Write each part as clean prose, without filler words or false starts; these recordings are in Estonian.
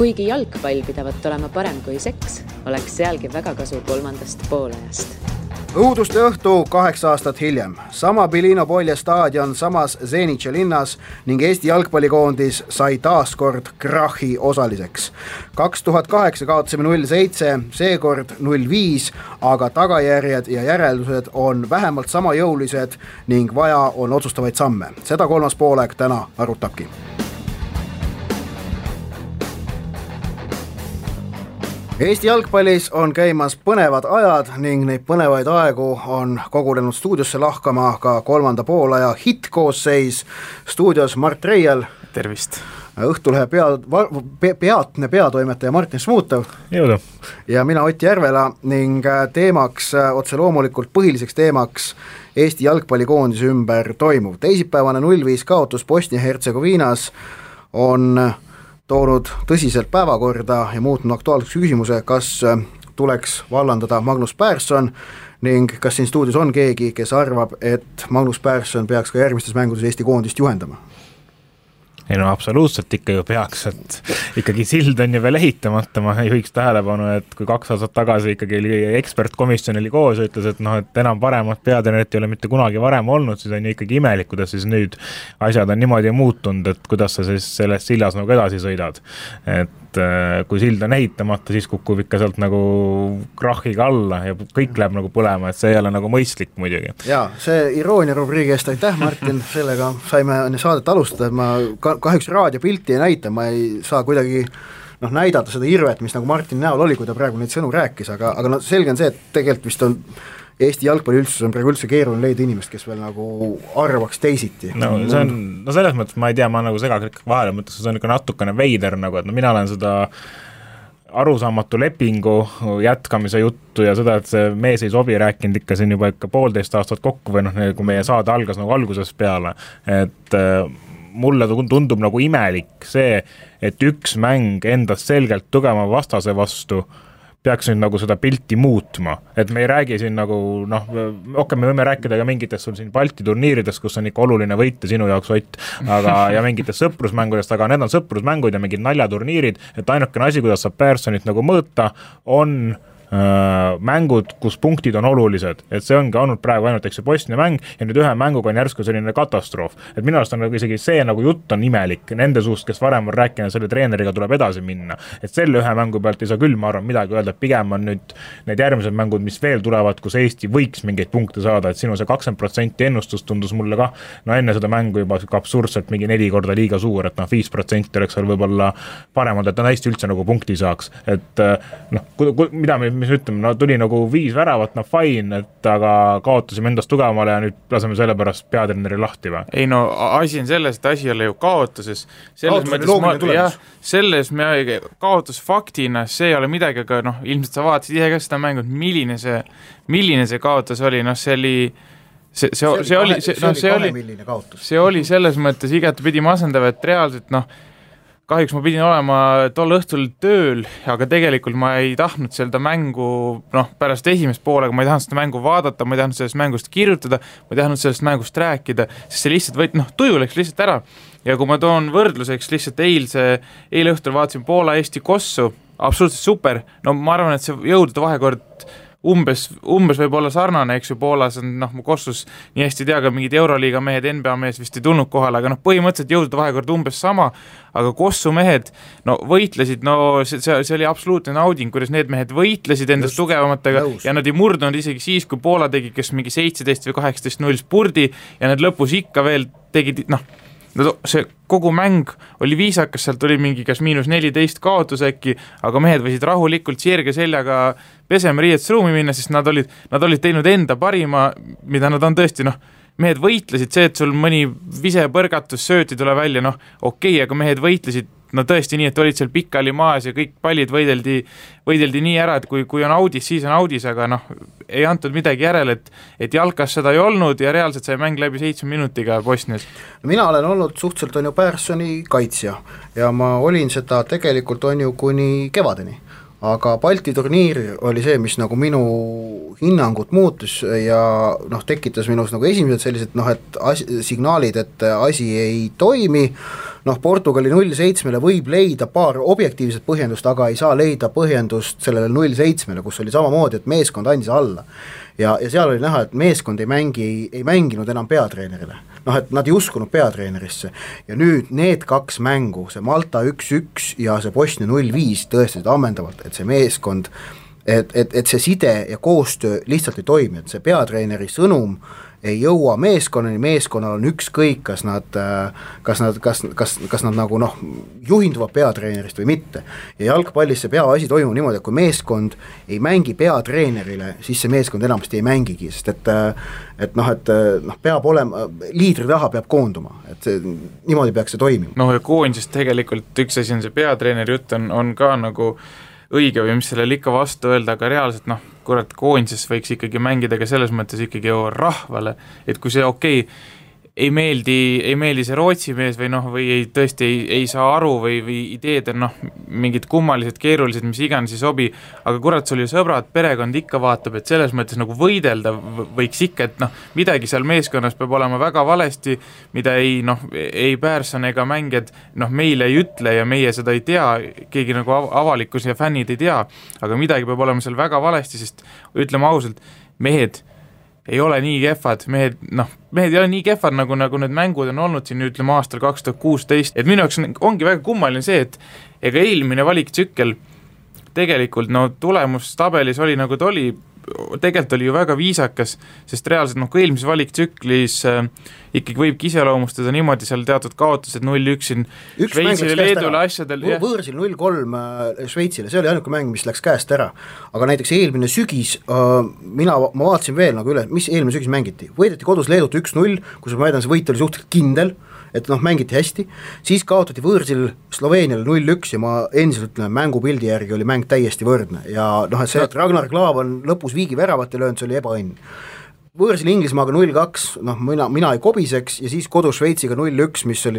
Kuigi jalgpall pidavat olema parem kui seks, oleks sealgi väga kasu kolmandast poolajast. Õuduste õhtu 8 aastat hiljem. Sama Bilino Polje staadion samas Zenitše linnas ning Eesti jalgpallikoondis sai taaskord krahi osaliseks. 2008 kaotasime 0-7, seekord 0-5, aga tagajärjed ja järeldused on vähemalt sama jõulised ning vaja on otsustavaid samme. Seda kolmas poolek täna arutabki. Eesti jalgpallis on käimas põnevad ajad ning neid põnevaid aegu on kogunenud stuudiosse lahkama ka kolmanda poolaja hittkoosseis. Stuudios Mart Reial. Tervist. Õhtulehe peatne peatoimetaja Martin Smuutov. Jõudu. Ja mina Ott Järvela ning teemaks, otse loomulikult põhiliseks teemaks Eesti jalgpallikoondise ümber toimuv. Teisipäevane 0-5 kaotus Bosnia-Hertsegoviinas on toonud tõsiselt päevakorda ja muutnud aktuaalseks küsimuse, kas tuleks vallandada Magnus Persson ning kas siin stuudios on keegi, kes arvab, et Magnus Persson peaks ka järgmistes mängudes Eesti koondist juhendama? Ei no absoluutselt ikka ju peaks, et ikkagi sild on ju veel ehitamata, ma juhiks tähelepanu, et kui 2 aastat tagasi ikkagi ekspertkomisjon oli koos ja ütles, et et enam paremat peatreenerit ei ole mitte kunagi varem olnud, siis on ju ikkagi imelik, kuidas siis nüüd asjad on niimoodi muutunud, et kuidas sa siis selles sillas nagu edasi sõidad. Et kui sild on ehitamata, siis kukub ikka sealt nagu krahiga alla ja kõik läheb nagu põlema, et see ei ole nagu mõistlik muidugi. Jaa, see iroonia rubriigi eest aitäh, Martin, sellega saime saadet alustada, et ma kahjuks raadiopilti ei näita, ma ei saa kuidagi näidata seda irvet, mis nagu Martin näol oli, kui ta praegu neid sõnu rääkis, aga selge on see, et tegelikult vist on Eesti jalgpalliüldsus on praegu üldse keeruline leida inimest, kes veel nagu arvaks teisiti. No selles mõttes ma ei tea, ma nagu segaklik vahele mõttes, see on ikka natukene veider nagu, et mina olen seda arusaamatu lepingu jätkamise juttu ja seda, et see mees ei sobi rääkinud ikka siin juba ikka 1,5 aastat kokku või kui meie saade algas nagu algusest peale, et mulle tundub nagu imelik see, et üks mäng endast selgelt tugeva vastase vastu peaks nüüd nagu seda pilti muutma, et me ei räägi siin nagu, me võime rääkida ka mingitest sul siin Balti turniiridest, kus on ikka oluline võita sinu jaoks Ott, aga ja mingitest sõprusmängudest, aga need on sõprusmängud ja mingid naljaturniirid, et ainukene asi, kuidas saab Perssonit nagu mõõta, on mängud, kus punktid on olulised, et see ongi olnud praegu ainult Bosnia mäng ja nüüd ühe mänguga on järsku selline katastroof, et minu arust on nagu isegi see nagu jutt on imelik nende suust, kes varem on rääkinud, selle treeneriga tuleb edasi minna, et selle ühe mängu pealt ei saa küll, ma arvan, midagi öelda, et pigem on nüüd need järgmised mängud, mis veel tulevad, kus Eesti võiks mingeid punkte saada, et sinu see 20% ennustus tundus mulle ka, enne seda mängu juba absurdselt mingi 4 korda liiga suur, et 5% oleks seal võib-olla paremad, et ta hästi üldse nagu punkti saaks, et mida mis ütleme, tuli nagu 5 väravat, fine, et aga kaotasime endast tugevamale ja nüüd laseme selle pärast peatreeneri lahti või? Ei asi on selles, et asi ei ole ju kaotuses. Selles kaotusfaktina see ei ole midagi, aga ilmselt sa vaatasid ise ka seda mängu, milline see kaotus oli, see oli selles mõttes igatepidi masendav, et reaalselt kahjuks ma pidin olema tol õhtul tööl, aga tegelikult ma ei tahtnud seda mängu, pärast esimest poolega ma ei tahtnud seda mängu vaadata, ma ei tahtnud sellest mängust kirjutada, ma ei tahtnud sellest mängust rääkida, sest see lihtsalt tuju läks lihtsalt ära. Ja kui ma toon võrdluseks lihtsalt eile õhtul vaatasin Poola Eesti kossu, absoluutselt super, ma arvan, et see jõudude vahekord umbes võib olla sarnane, eks ju, Poolas on, Kossus nii hästi tea, ka mingid Euroliiga mehed, NBA mees vist ei tulnud kohale, aga põhimõtteliselt jõudude vahekord umbes sama, aga Kossu mehed, võitlesid, see oli absoluutne nauding, kuidas need mehed võitlesid endast tugevamatega ja nad ei murdunud isegi siis, kui Poola tegi, kes mingi 17 või 18-0 spurdi ja nad lõpus ikka veel tegid, see kogu mäng oli viisakas, sealt oli mingi kas -14 kaotus äkki, aga mehed võisid rahulikult sirge seljaga pesema riietusruumi minna, sest nad olid teinud enda parima, mida nad on tõesti, mehed võitlesid, see, et sul mõni visepõrgatus sööti tule välja, okei, aga mehed võitlesid tõesti nii, et olid seal pikali maas ja kõik pallid võideldi nii ära, et kui on audis, siis on audis, aga ei antud midagi järele, et jalkas seda ei olnud ja reaalselt sai mäng läbi 7 minutiga Bosnias. Mina olen olnud suhteliselt Perssoni kaitsja ja ma olin seda tegelikult kuni kevadeni. Aga Balti turniir oli see, mis nagu minu hinnangut muutus ja tekitas minus nagu esimesed sellised signaalid, et asi ei toimi. noh, Portugali 0-7-le võib leida paar objektiivset põhjendust, aga ei saa leida põhjendust sellele 0-7-le, kus oli samamoodi, et meeskond andis alla. Ja seal oli näha, et meeskond ei mänginud enam peatreenerile. Noh, et nad ei uskunud peatreenerisse. Ja nüüd need kaks mängu, see Malta 1-1 ja see Bosnia 0-5 tõestasid ammendavalt, et see meeskond, et see side ja koostöö lihtsalt ei toimi, et see peatreeneri sõnum ei jõua meeskonnani, meeskonnal on ükskõik, kas nad nagu noh, juhinduvad peatreenerist või mitte. Ja jalgpallis see peaasi toimub niimoodi, et kui meeskond ei mängi peatreenerile, siis see meeskond enamasti ei mängigi, sest et peab olema, liidri taha peab koonduma, et see, niimoodi peaks see toimima. Noh, ja koondisest tegelikult üks asi on see peatreeneri jutt on ka nagu õige või mis sellele ikka vastu öelda, aga reaalselt noh, kurat, koondises võiks ikkagi mängida ka selles mõttes ikkagi ju rahvale, et kui see ei meeldi see Rootsi mees või noh, või tõesti ei saa aru või ideed on noh, mingid kummalised, keerulised, mis iganes ei sobi, aga kurat, sul ju sõbrad, perekond ikka vaatab, et selles mõttes nagu võidelda võiks ikka, et noh, midagi seal meeskonnas peab olema väga valesti, mida ei Pärson ega mängijad noh, meile ei ütle ja meie seda ei tea, keegi nagu avalikkus ja fännid ei tea, aga midagi peab olema seal väga valesti, sest ütleme ausalt, mehed ei ole nii kehvad, mehed ei ole nii kehvad, nagu need mängud on olnud siin, ütleme aastal 2016, et minu jaoks ongi väga kummaline see, et ega eelmine valiktsükkel tegelikult tulemustabelis oli nagu ta oli, tegelikult oli ju väga viisakas, sest reaalselt kui eelmises valiktsüklis ikkagi võibki iseloomustada niimoodi seal teatud kaotused 0-1 siin Šveitsile, Leedule asjadel. Võõrsil 0-3 Šveitsile, see oli ainuke mäng, mis läks käest ära, aga näiteks eelmine sügis, ma vaatasin veel nagu üle, mis eelmine sügis mängiti, võideti kodus Leedut 1-0, kus ma väidan, see võit oli suhteliselt kindel, et mängiti hästi, siis kaotati võõrsil Sloveeniale 0-1 ja ma endiselt ütlen, mängupildi järgi oli mäng täiesti võrdne ja et see, et Ragnar Klav on lõpus viigi väravat ja löönud, see oli ebaõnn. Võõrsil Inglismaaga 0-2, mina ei kobiseks ja siis kodus Šveitsiga 0-1, mis oli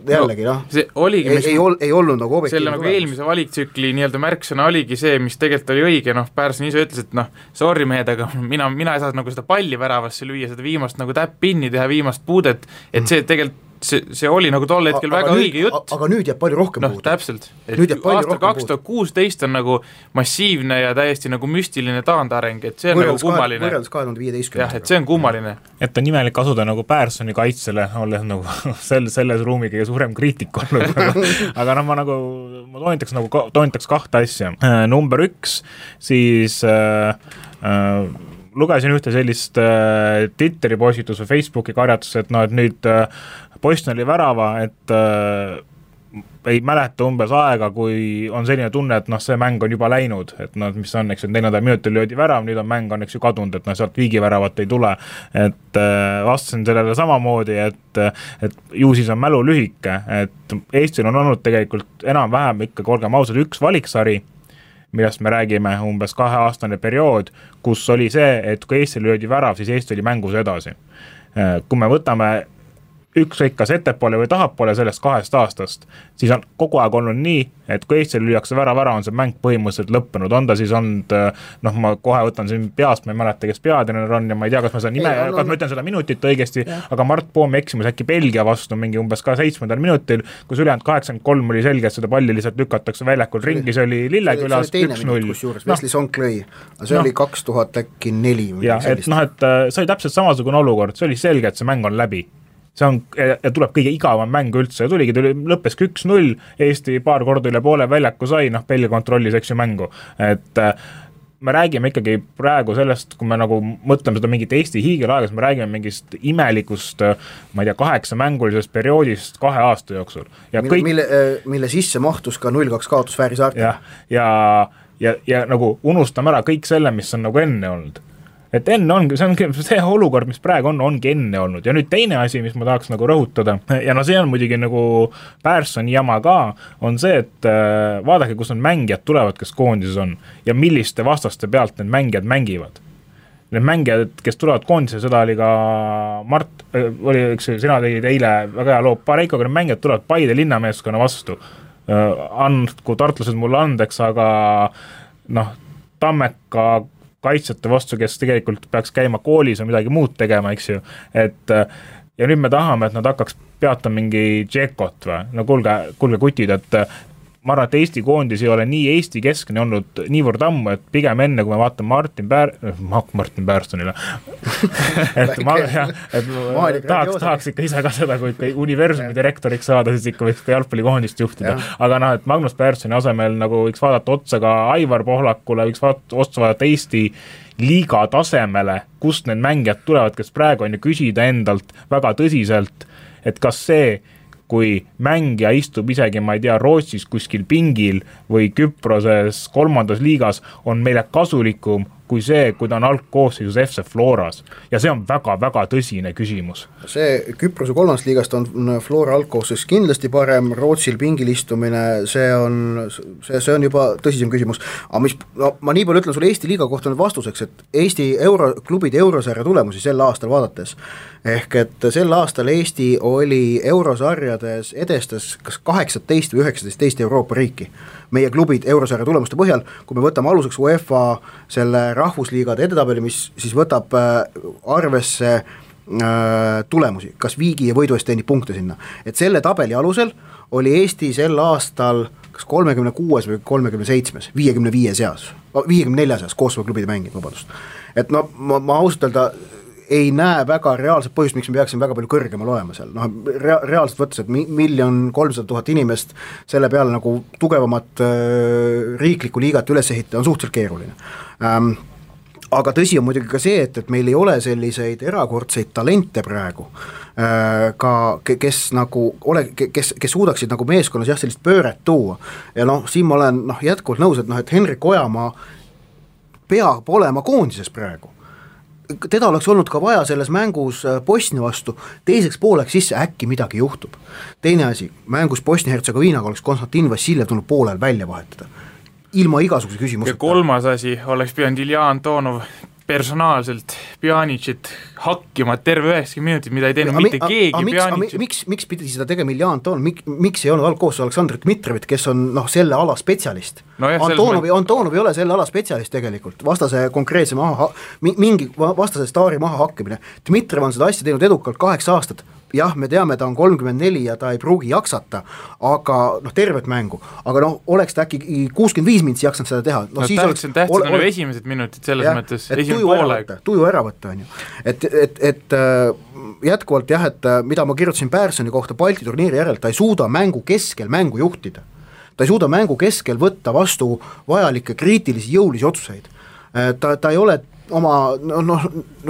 jällegi ei olnud nagu objektiivne. Selle nagu eelmise valiktsükli nii-öelda märksõna oligi see, mis tegelikult oli õige, Pärson ise ütles, et sorry mehed, aga mina ei saa nagu seda palli väravasse lüüa, seda viimast nagu täpp-pinni teha, viimast puudet, et see tegelikult see oli nagu tol hetkel väga õige jutt. Aga nüüd jääb palju rohkem puudu. Täpselt. Aastal 2016 on nagu massiivne ja täiesti nagu müstiline taandareng, et see on nagu kummaline. Võrreldes 2015. Jah, et see on kummaline. Et on nimelik asuda nagu Pärsoni kaitsele, olles nagu selles ruumi kõige suurem kriitik olnud. Aga ma toonitaks kahte asja. Number 1, siis lugesin ühte sellist Twitteri postitus või Facebooki karjatus, et et nüüd Bosnia oli värava, et ei mäleta umbes aega, kui on selline tunne, et see mäng on juba läinud, et mis on, eks, et 4. minutil löödi värav, nüüd on mäng on, eks ju, kadunud, et sealt viigiväravat ei tule, et vastasin sellele samamoodi, et ju siis on mälu lühike, et Eestil on olnud tegelikult enam-vähem ikka, olgem ausad, üks valiksari, millest me räägime umbes 2-aastane periood, kus oli see, et kui Eestil löödi värav, siis Eesti oli mängus edasi. Kui me võtame ükskõik kas ettepoole või tahapoole sellest 2 aastast, siis on kogu aeg olnud nii, et kui Eestil lüüakse värav ära, on see mäng põhimõtteliselt lõppenud, on ta siis olnud, ma kohe võtan siin peast, ma ei mäleta, kes peatreener on ja ma ei tea, kas ma seda nime, kas ma ütlen seda minutit õigesti, aga Mart Poomi eksimus äkki Belgia vastu mingi umbes ka 7. minutil, kus ülejäänud 83 oli selge, et seda palli lihtsalt lükatakse väljakul ringi, see oli Lillekülas 1-0. Vesli Sonk lõi, see oli 2004. Ja, et see oli täpselt samasugune olukord, see oli selge, et see mäng on läbi. See on, ja tuleb kõige igavam mäng üldse, lõppeski 1-0, Eesti paar korda üle poole väljaku sai, Belgia kontrollis, eks ju, mängu, et me räägime ikkagi praegu sellest, kui me nagu mõtleme seda mingit Eesti hiigelaegas, me räägime mingist imelikust, ma ei tea, 8-mängulisest perioodist 2 aasta jooksul. Ja mille sisse mahtus ka 0-2 kaotus Fääri saartel. Ja nagu unustame ära kõik selle, mis on nagu enne olnud. Et enne ongi, see olukord, mis praegu ongi enne olnud. Ja nüüd teine asi, mis ma tahaks nagu rõhutada, ja see on muidugi nagu Pärssoni jama ka, on see, et vaadake, kus need mängijad tulevad, kes koondises on, ja milliste vastaste pealt need mängijad mängivad. Need mängijad, kes tulevad koondise, seda oli ka Mart, sina tegid eile väga hea loo Pareikoga, need mängijad tulevad Paide linnameeskonna vastu. Andku tartlased mulle andeks, aga Tammeka kaitsjate vastu, kes tegelikult peaks käima koolis või midagi muud tegema, eks ju, et ja nüüd me tahame, et nad hakkaks peatama mingi Džekot või, no kuulge kutid, et ma arvan, et Eesti koondis ei ole nii Eesti keskne olnud niivõrd ammu, et pigem enne, kui me vaatame Martin Pärsonile, et tahaks ikka ise ka seda, kui ikka universumi direktoriks saada, siis ikka võiks ka jalgpallikoondist juhtida. Aga et Magnus Pärssoni asemel nagu võiks vaadata otsa ka Aivar Pohlakule, võiks otsa vaadata Eesti liiga tasemele, kust need mängijad tulevad, kes praegu on ju küsida endalt väga tõsiselt, et kas see, kui mängija istub isegi, ma ei tea, Rootsis kuskil pingil või Küproses 3. liigas, on meile kasulikum kui see, kui ta on algkoosseisus FC Floras. Ja see on väga-väga tõsine küsimus. See Küprose 3. liigast on Flora algkoosseis kindlasti parem, Rootsil pingil istumine, see on juba tõsisem küsimus. Aga ma nii palju ütlen sulle Eesti liiga kohta nüüd vastuseks, et Eesti klubide eurosarja tulemusi sel aastal vaadates, ehk et sel aastal Eesti oli eurosarjades edestas kas 18 või 19 teist Euroopa riiki. Meie klubid eurosarja tulemuste põhjal, kui me võtame aluseks UEFA selle rahvusliigade edetabeli, mis siis võtab arvesse tulemusi, kas viigi ja võidu eest teenib punkte sinna. Et selle tabeli alusel oli Eesti sel aastal kas 36 või 37, 55 seas, 54 seas koostöö klubide mängid, vabandust. Et no ma ausalt öelda ei näe väga reaalset põhjust, miks me peaksime väga palju kõrgemal olema seal. Reaalselt võttes, et 1 300 000 inimest selle peale nagu tugevamat riiklikku liigat üles ehitada on suhteliselt keeruline. Aga tõsi on muidugi ka see, et meil ei ole selliseid erakordseid talente praegu, kes suudaksid nagu meeskonnas sellist pööret tuua. Ja siin ma olen jätkuvalt nõus, et Henrik Ojamaa peab olema koondises praegu. Teda oleks olnud ka vaja selles mängus Bosnia vastu, teiseks pooleks sisse äkki midagi juhtub. Teine asi, mängus Bosnia-Hertsegoviinaga oleks Konstantin Vassiljev tulnud poolel välja vahetada. Ilma igasuguse küsimuseta. Ja 3. asi oleks pidanud Ilja Antonov personaalselt Pjanicit hakkima terve 90 minutit, mida ei teinud mitte keegi Pjanicit. Miks pidi seda tegema Ilja Antonov, miks ei olnud algkoos Aleksandr Dmitrovit, kes on selle ala spetsialist? Antonov ei ole selle ala spetsialist tegelikult, vastase konkreetse mingi vastase staari maha hakkimine. Dmitrov on seda asja teinud edukalt 8 aastat. Jah, me teame, ta on 34 ja ta ei pruugi jaksata, aga tervet mängu, aga oleks ta äkki 65 minutsi jaksanud seda teha. Tähtsid on ju esimesed minutid selles mõttes, esimene poolega. Tuju ära võtta, on ju. Et jätkuvalt et mida ma kirjutasin Pärssoni kohta Balti turniiri järel, ta ei suuda mängu keskel mängu juhtida. Ta ei suuda mängu keskel võtta vastu vajalikke kriitilisi jõulisi otsuseid. Ta ei ole oma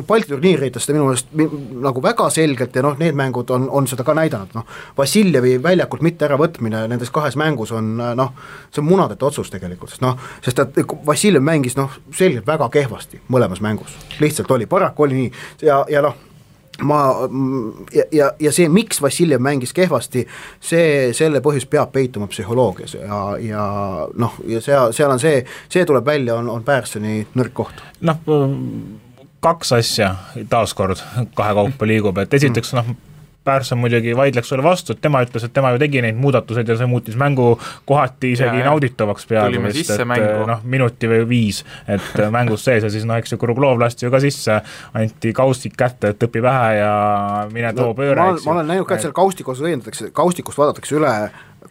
Balti turniiridest minu meelest nagu väga selgelt ja need mängud on seda ka näidanud. Vassiljevi väljakult mitte ära võtmine nendes 2 mängus on see on munadete otsus tegelikult, sest et Vassiljev mängis selgelt väga kehvasti mõlemas mängus, lihtsalt oli, paraku oli nii ja see, miks Vassiljev mängis kehvasti, selle põhjus peab peituma psühholoogias ja seal on see tuleb välja, on Pärssoni nõrk koht. 2 asja taaskord 2 kaupa liigub, et esiteks Pärsson muidugi vaidleks sulle vastu, et tema ütles, et tema ju tegi neid muudatused ja see muutis mängu kohati isegi nauditavaks peaaegu vist, et minuti või 5, et mängus sees ja siis eks ju Kuruglov lasti ju ka sisse, anti kaustik kätte, et õpi vähe ja mine too pööre. Ma olen näinud ka, et seal kaustikust vaadatakse üle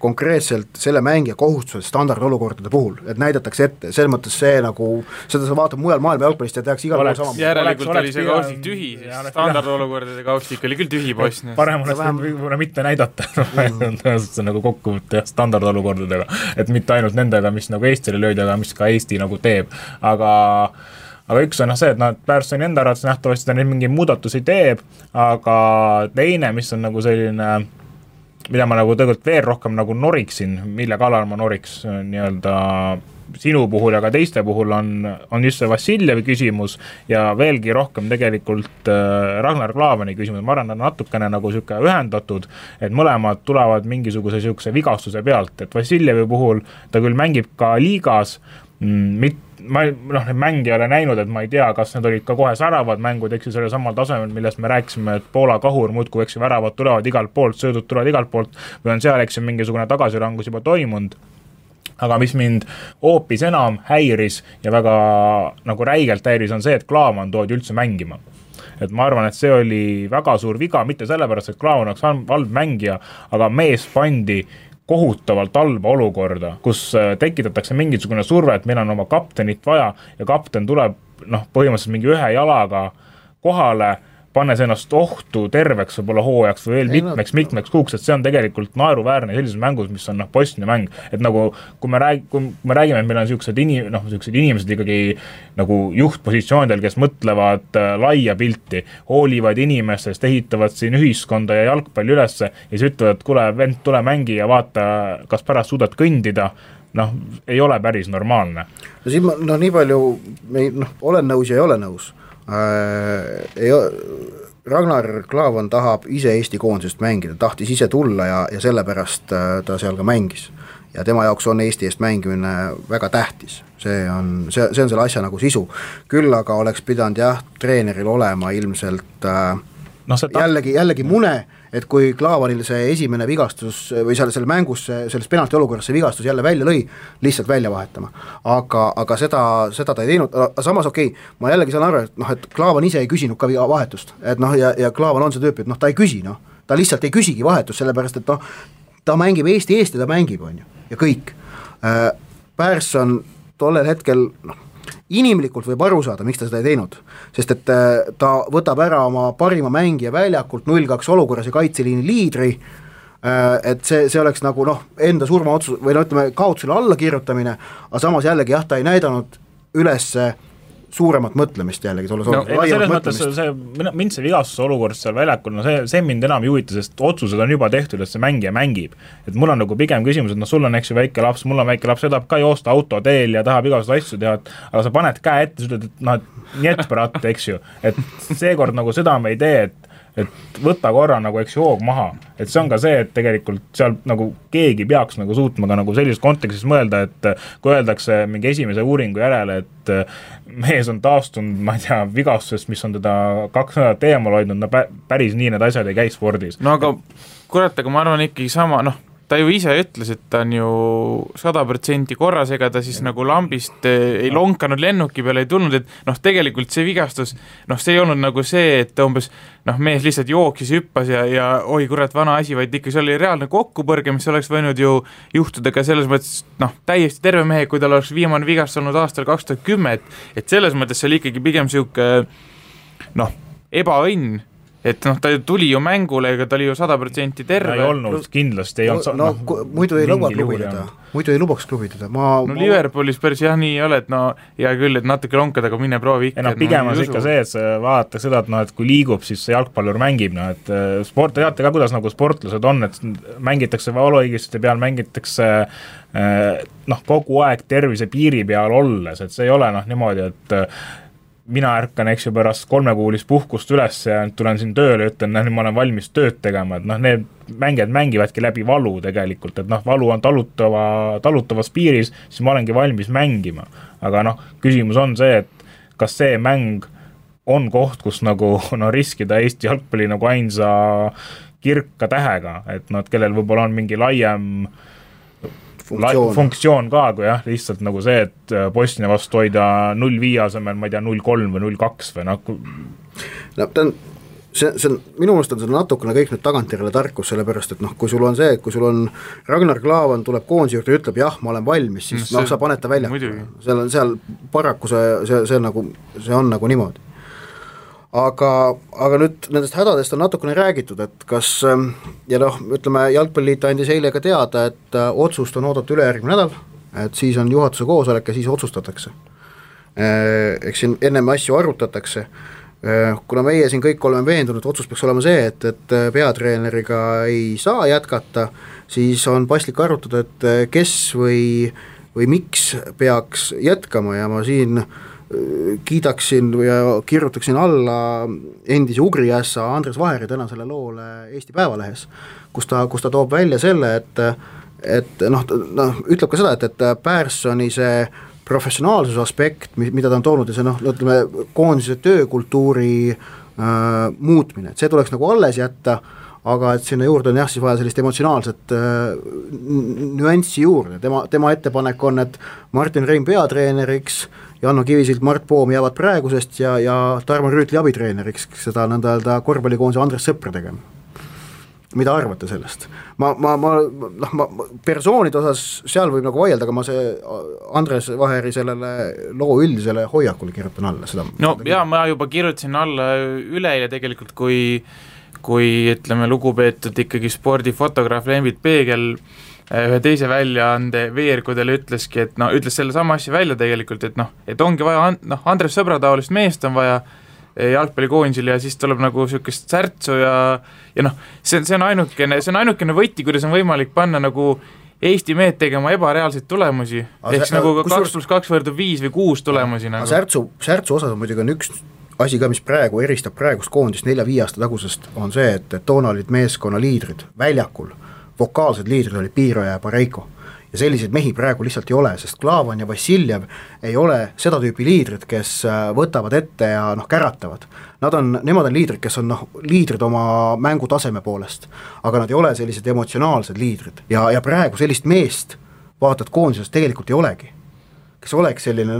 konkreetselt selle mängija kohustused standardolukordade puhul, et näidatakse ette, selles mõttes see seda sa vaatad mujal maailma jalgpallist ja tehakse igal pool sama. Järelikult oli see kaustik tühi, sest standardolukordade kaustik oli küll tühi Bosnias. Parem oleks võib-olla mitte näidata, see kokkuvõtte standardolukordadega, et mitte ainult nendega, mis Eestile löödi, aga mis ka Eesti teeb, aga üks on see, et Pärssoni enda arvates nähtavasti ta neid mingi muudatusi teeb, aga teine, mis on selline mida ma tegelikult veel rohkem noriksin, mille kallal ma noriks nii-öelda sinu puhul ja ka teiste puhul on just see Vassiljevi küsimus ja veelgi rohkem tegelikult Ragnar Klavani küsimus. Ma arvan, natukene siuke ühendatud, et mõlemad tulevad mingisuguse siukse vigastuse pealt, et Vassiljevi puhul ta küll mängib ka liigas, need mängi ei ole näinud, et ma ei tea, kas need olid ka kohe säravad mängud, selle samal tasemel, millest me rääkisime, et Poola kahur muudkui väravad tulevad igalt poolt, söödud tulevad igalt poolt või on seal mingisugune tagasirangus juba toimunud. Aga mis mind hoopis enam häiris ja väga räigelt häiris on see, et Klaavan toodi üldse mängima. et ma arvan, et see oli väga suur viga, mitte sellepärast, et Klaavan oleks halb mängija, aga mees pandi kohutavalt halba olukorda, kus tekitatakse mingisugune surve, et meil on oma kaptenit vaja ja kapten tuleb põhimõtteliselt mingi ühe jalaga kohale, pannes ennast ohtu terveks võib-olla hooajaks või veel mitmeks kuuks, et see on tegelikult naeruväärne sellises mängus, mis on Bosnia mäng, et nagu kui me räägime, et meil on sellised inimesed ikkagi nagu juhtpositsioonidel, kes mõtlevad laia pilti, hoolivad inimestest, ehitavad siin ühiskonda ja jalgpalli ülesse ja siis ütlevad, et kuule, vend, tule mängi ja vaata, kas pärast suudad kõndida, ei ole päris normaalne. No siin ma nii palju, olen nõus ja ei ole nõus. Ragnar Klavan tahab ise Eesti koondisest mängida, tahtis ise tulla ja sellepärast ta seal ka mängis ja tema jaoks on Eesti eest mängimine väga tähtis, see on selle asja nagu sisu, küll aga oleks pidanud treeneril olema ilmselt jällegi mune, et kui Klaavanil see esimene vigastus või selle mängus, selles penalti olukorras see vigastus jälle välja lõi, lihtsalt välja vahetama. Aga seda ta ei teinud, samas ma jällegi saan aru, et Klaavan ise ei küsinud ka vahetust, et ja Klaavan on see tüüp, et ta ei küsi, ta lihtsalt ei küsigi vahetust, sellepärast, et ta mängib Eesti eest ja ta mängib, on ju, ja kõik. Persson tollel hetkel, inimlikult võib aru saada, miks ta seda ei teinud, sest et ta võtab ära oma parima mängija väljakult 0-2 olukorras ja kaitseliini liidri, et see oleks nagu enda surmaotsus või ütleme kaotusele alla kirjutamine, aga samas jällegi ta ei näidanud üles suuremat mõtlemist jällegi, selles mõttes mind see vigastuse olukord seal väljakul, see mind enam ei huvita, sest otsused on juba tehtud, et see mängija mängib, et mul on nagu pigem küsimus, et sul on eks ju väike laps, mul on väike laps, see tahab ka joosta autoteel ja tahab igasuguseid asju teha, aga sa paned käe ette, sa ütled, et nii pärat, eks ju, et seekord nagu seda me ei tee, et võtta korra nagu eks hoog maha, et see on ka see, et tegelikult seal nagu keegi peaks nagu suutma ka nagu sellises kontekstis mõelda, et kui öeldakse mingi esimese uuringu järele, et mees on taastunud, ma ei tea, vigastusest, mis on teda 2 nädalat eemal hoidnud, päris nii need asjad ei käi spordis. No aga kurat, aga ma arvan ikkagi sama, ta ju ise ütles, et ta on ju 100% korras, ega ta siis nagu lambist ei lonkanud, lennuki peale ei tulnud, et tegelikult see vigastus, see ei olnud nagu see, et umbes mees lihtsalt jooksis, hüppas ja oi kurat, vana asi, vaid ikka see oli reaalne kokkupõrge, mis oleks võinud ju juhtuda ka selles mõttes, täiesti terve mehe, kui tal oleks viimane vigastus olnud aastal 2010, et selles mõttes see oli ikkagi pigem siuke ebaõnn, et ta tuli ju mängule, ega ta oli ju 100% terve. Ei olnud, kindlasti ei olnud. Muidu ei lubaks klubidada. Liverpoolis päris nii ei ole, et hea küll, et natuke lonkad, aga mine proovi ikka. Pigem on ikka see, et sa vaatad seda, et kui liigub, siis see jalgpallur mängib, et sport, teate ka, kuidas nagu sportlased on, et mängitakse valuõigiste peal, mängitakse kogu aeg tervise piiri peal olles, et see ei ole niimoodi, et mina ärkan, eks ju, pärast 3-kuulist puhkust üles ja tulen siin tööle ja ütlen, nüüd ma olen valmis tööd tegema, et need mängijad mängivadki läbi valu tegelikult, et valu on talutavas piiris, siis ma olengi valmis mängima. Aga küsimus on see, et kas see mäng on koht, kus nagu riskida Eesti jalgpalli nagu ainsa kirka tähega, et kellel võib-olla on mingi laiem funktsioon ka, kui lihtsalt nagu see, et Bosnia vastu hoida 0-5 asemel, ma ei tea, 0-3 või 0-2 või see on, minu meelest on see natukene kõik nüüd tagantjärele tarkus, sellepärast, et kui sul on see, et kui sul on Ragnar Klavan tuleb koondise juurde ja ütleb, jah, ma olen valmis, siis sa paned ta välja. Seal paraku see on nagu niimoodi. Aga nüüd nendest hädadest on natukene räägitud, et kas, ja ütleme, Jalgpalliliit andis eile ka teada, et otsust on oodata ülejärgmine nädal, et siis on juhatuse koosolek ja siis otsustatakse. Eks siin ennem asju arutatakse, kuna meie siin kõik oleme veendunud, otsus peaks olema see, et peatreeneriga ei saa jätkata, siis on paslik arutada, et kes või miks peaks jätkama ja ma siin kiidaksin ja kirjutaksin alla endise Ugriässa Andres Vaheri tänasele loole Eesti Päevalehes, kus ta toob välja selle, et ütleb ka seda, et Perssoni see professionaalsuse aspekt, mida ta on toonud ja see ütleme, koondise töökultuuri muutmine, et see tuleks nagu alles jätta, aga et sinna juurde on jah, siis vaja sellist emotsionaalset nüanssi juurde, tema ettepanek on, et Martin Reim peatreeneriks, Janno Kivisild, Mart Poom jäävad praegusest ja Tarmo Rüütli abitreeneriks, seda nõnda öelda korvpallikoondise Andres Sõpra tegema. Mida arvate sellest? Ma persoonide osas seal võib nagu vaielda, aga ma see Andres Vaheri sellele loo üldisele hoiakule kirjutan alla seda. No jaa, ma juba kirjutasin alla üleile tegelikult, kui ütleme lugupeetud ikkagi spordifotograaf Lembit Peegel ühe teise väljaande veerkudel ütleski, et ütles selle sama asja välja tegelikult, et ongi vaja, Andres Sõbra taolist meest on vaja jalgpallikoondisel ja siis tuleb nagu niisugust särtsu ja see on ainukene võti, kuidas on võimalik panna nagu Eesti mehed tegema ebareaalseid tulemusi, ehk nagu 2+2 võrdub 5 või 6 tulemusi nagu. Särtsu osas muidugi on üks asi ka, mis praegu eristab praegust koondist 4-5 aasta tagusest, on see, et toona olid meeskonna liidrid väljakul, vokaalsed liidrid olid Piiroja ja Pareiko ja selliseid mehi praegu lihtsalt ei ole, sest Klaavan ja Vassiljev ei ole seda tüüpi liidrid, kes võtavad ette ja käratavad. Nemad on liidrid, kes on liidrid oma mängutaseme poolest, aga nad ei ole sellised emotsionaalsed liidrid ja praegu sellist meest vaatad koondises tegelikult ei olegi, kes oleks selline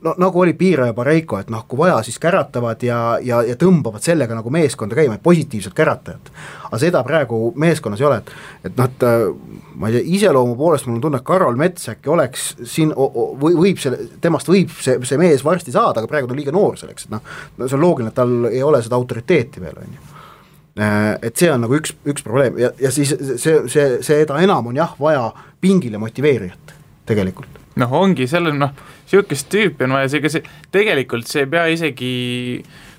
nagu oli Piira ja Pareiko, et kui vaja, siis käratavad ja tõmbavad sellega nagu meeskonda käima, positiivselt käratajad. Aga seda praegu meeskonnas ei ole, et ma ei tea, iseloomu poolest mul on tunne, et Karol Mets äkki oleks siin, temast võib see mees varsti saada, aga praegu ta on liiga noor selleks, et see on loogiline, et tal ei ole seda autoriteeti veel, on ju. Et see on nagu üks probleem ja siis seda enam on jah vaja pingile motiveerijat tegelikult. Ongi selle, siukest tüüpi on vaja, tegelikult see ei pea isegi,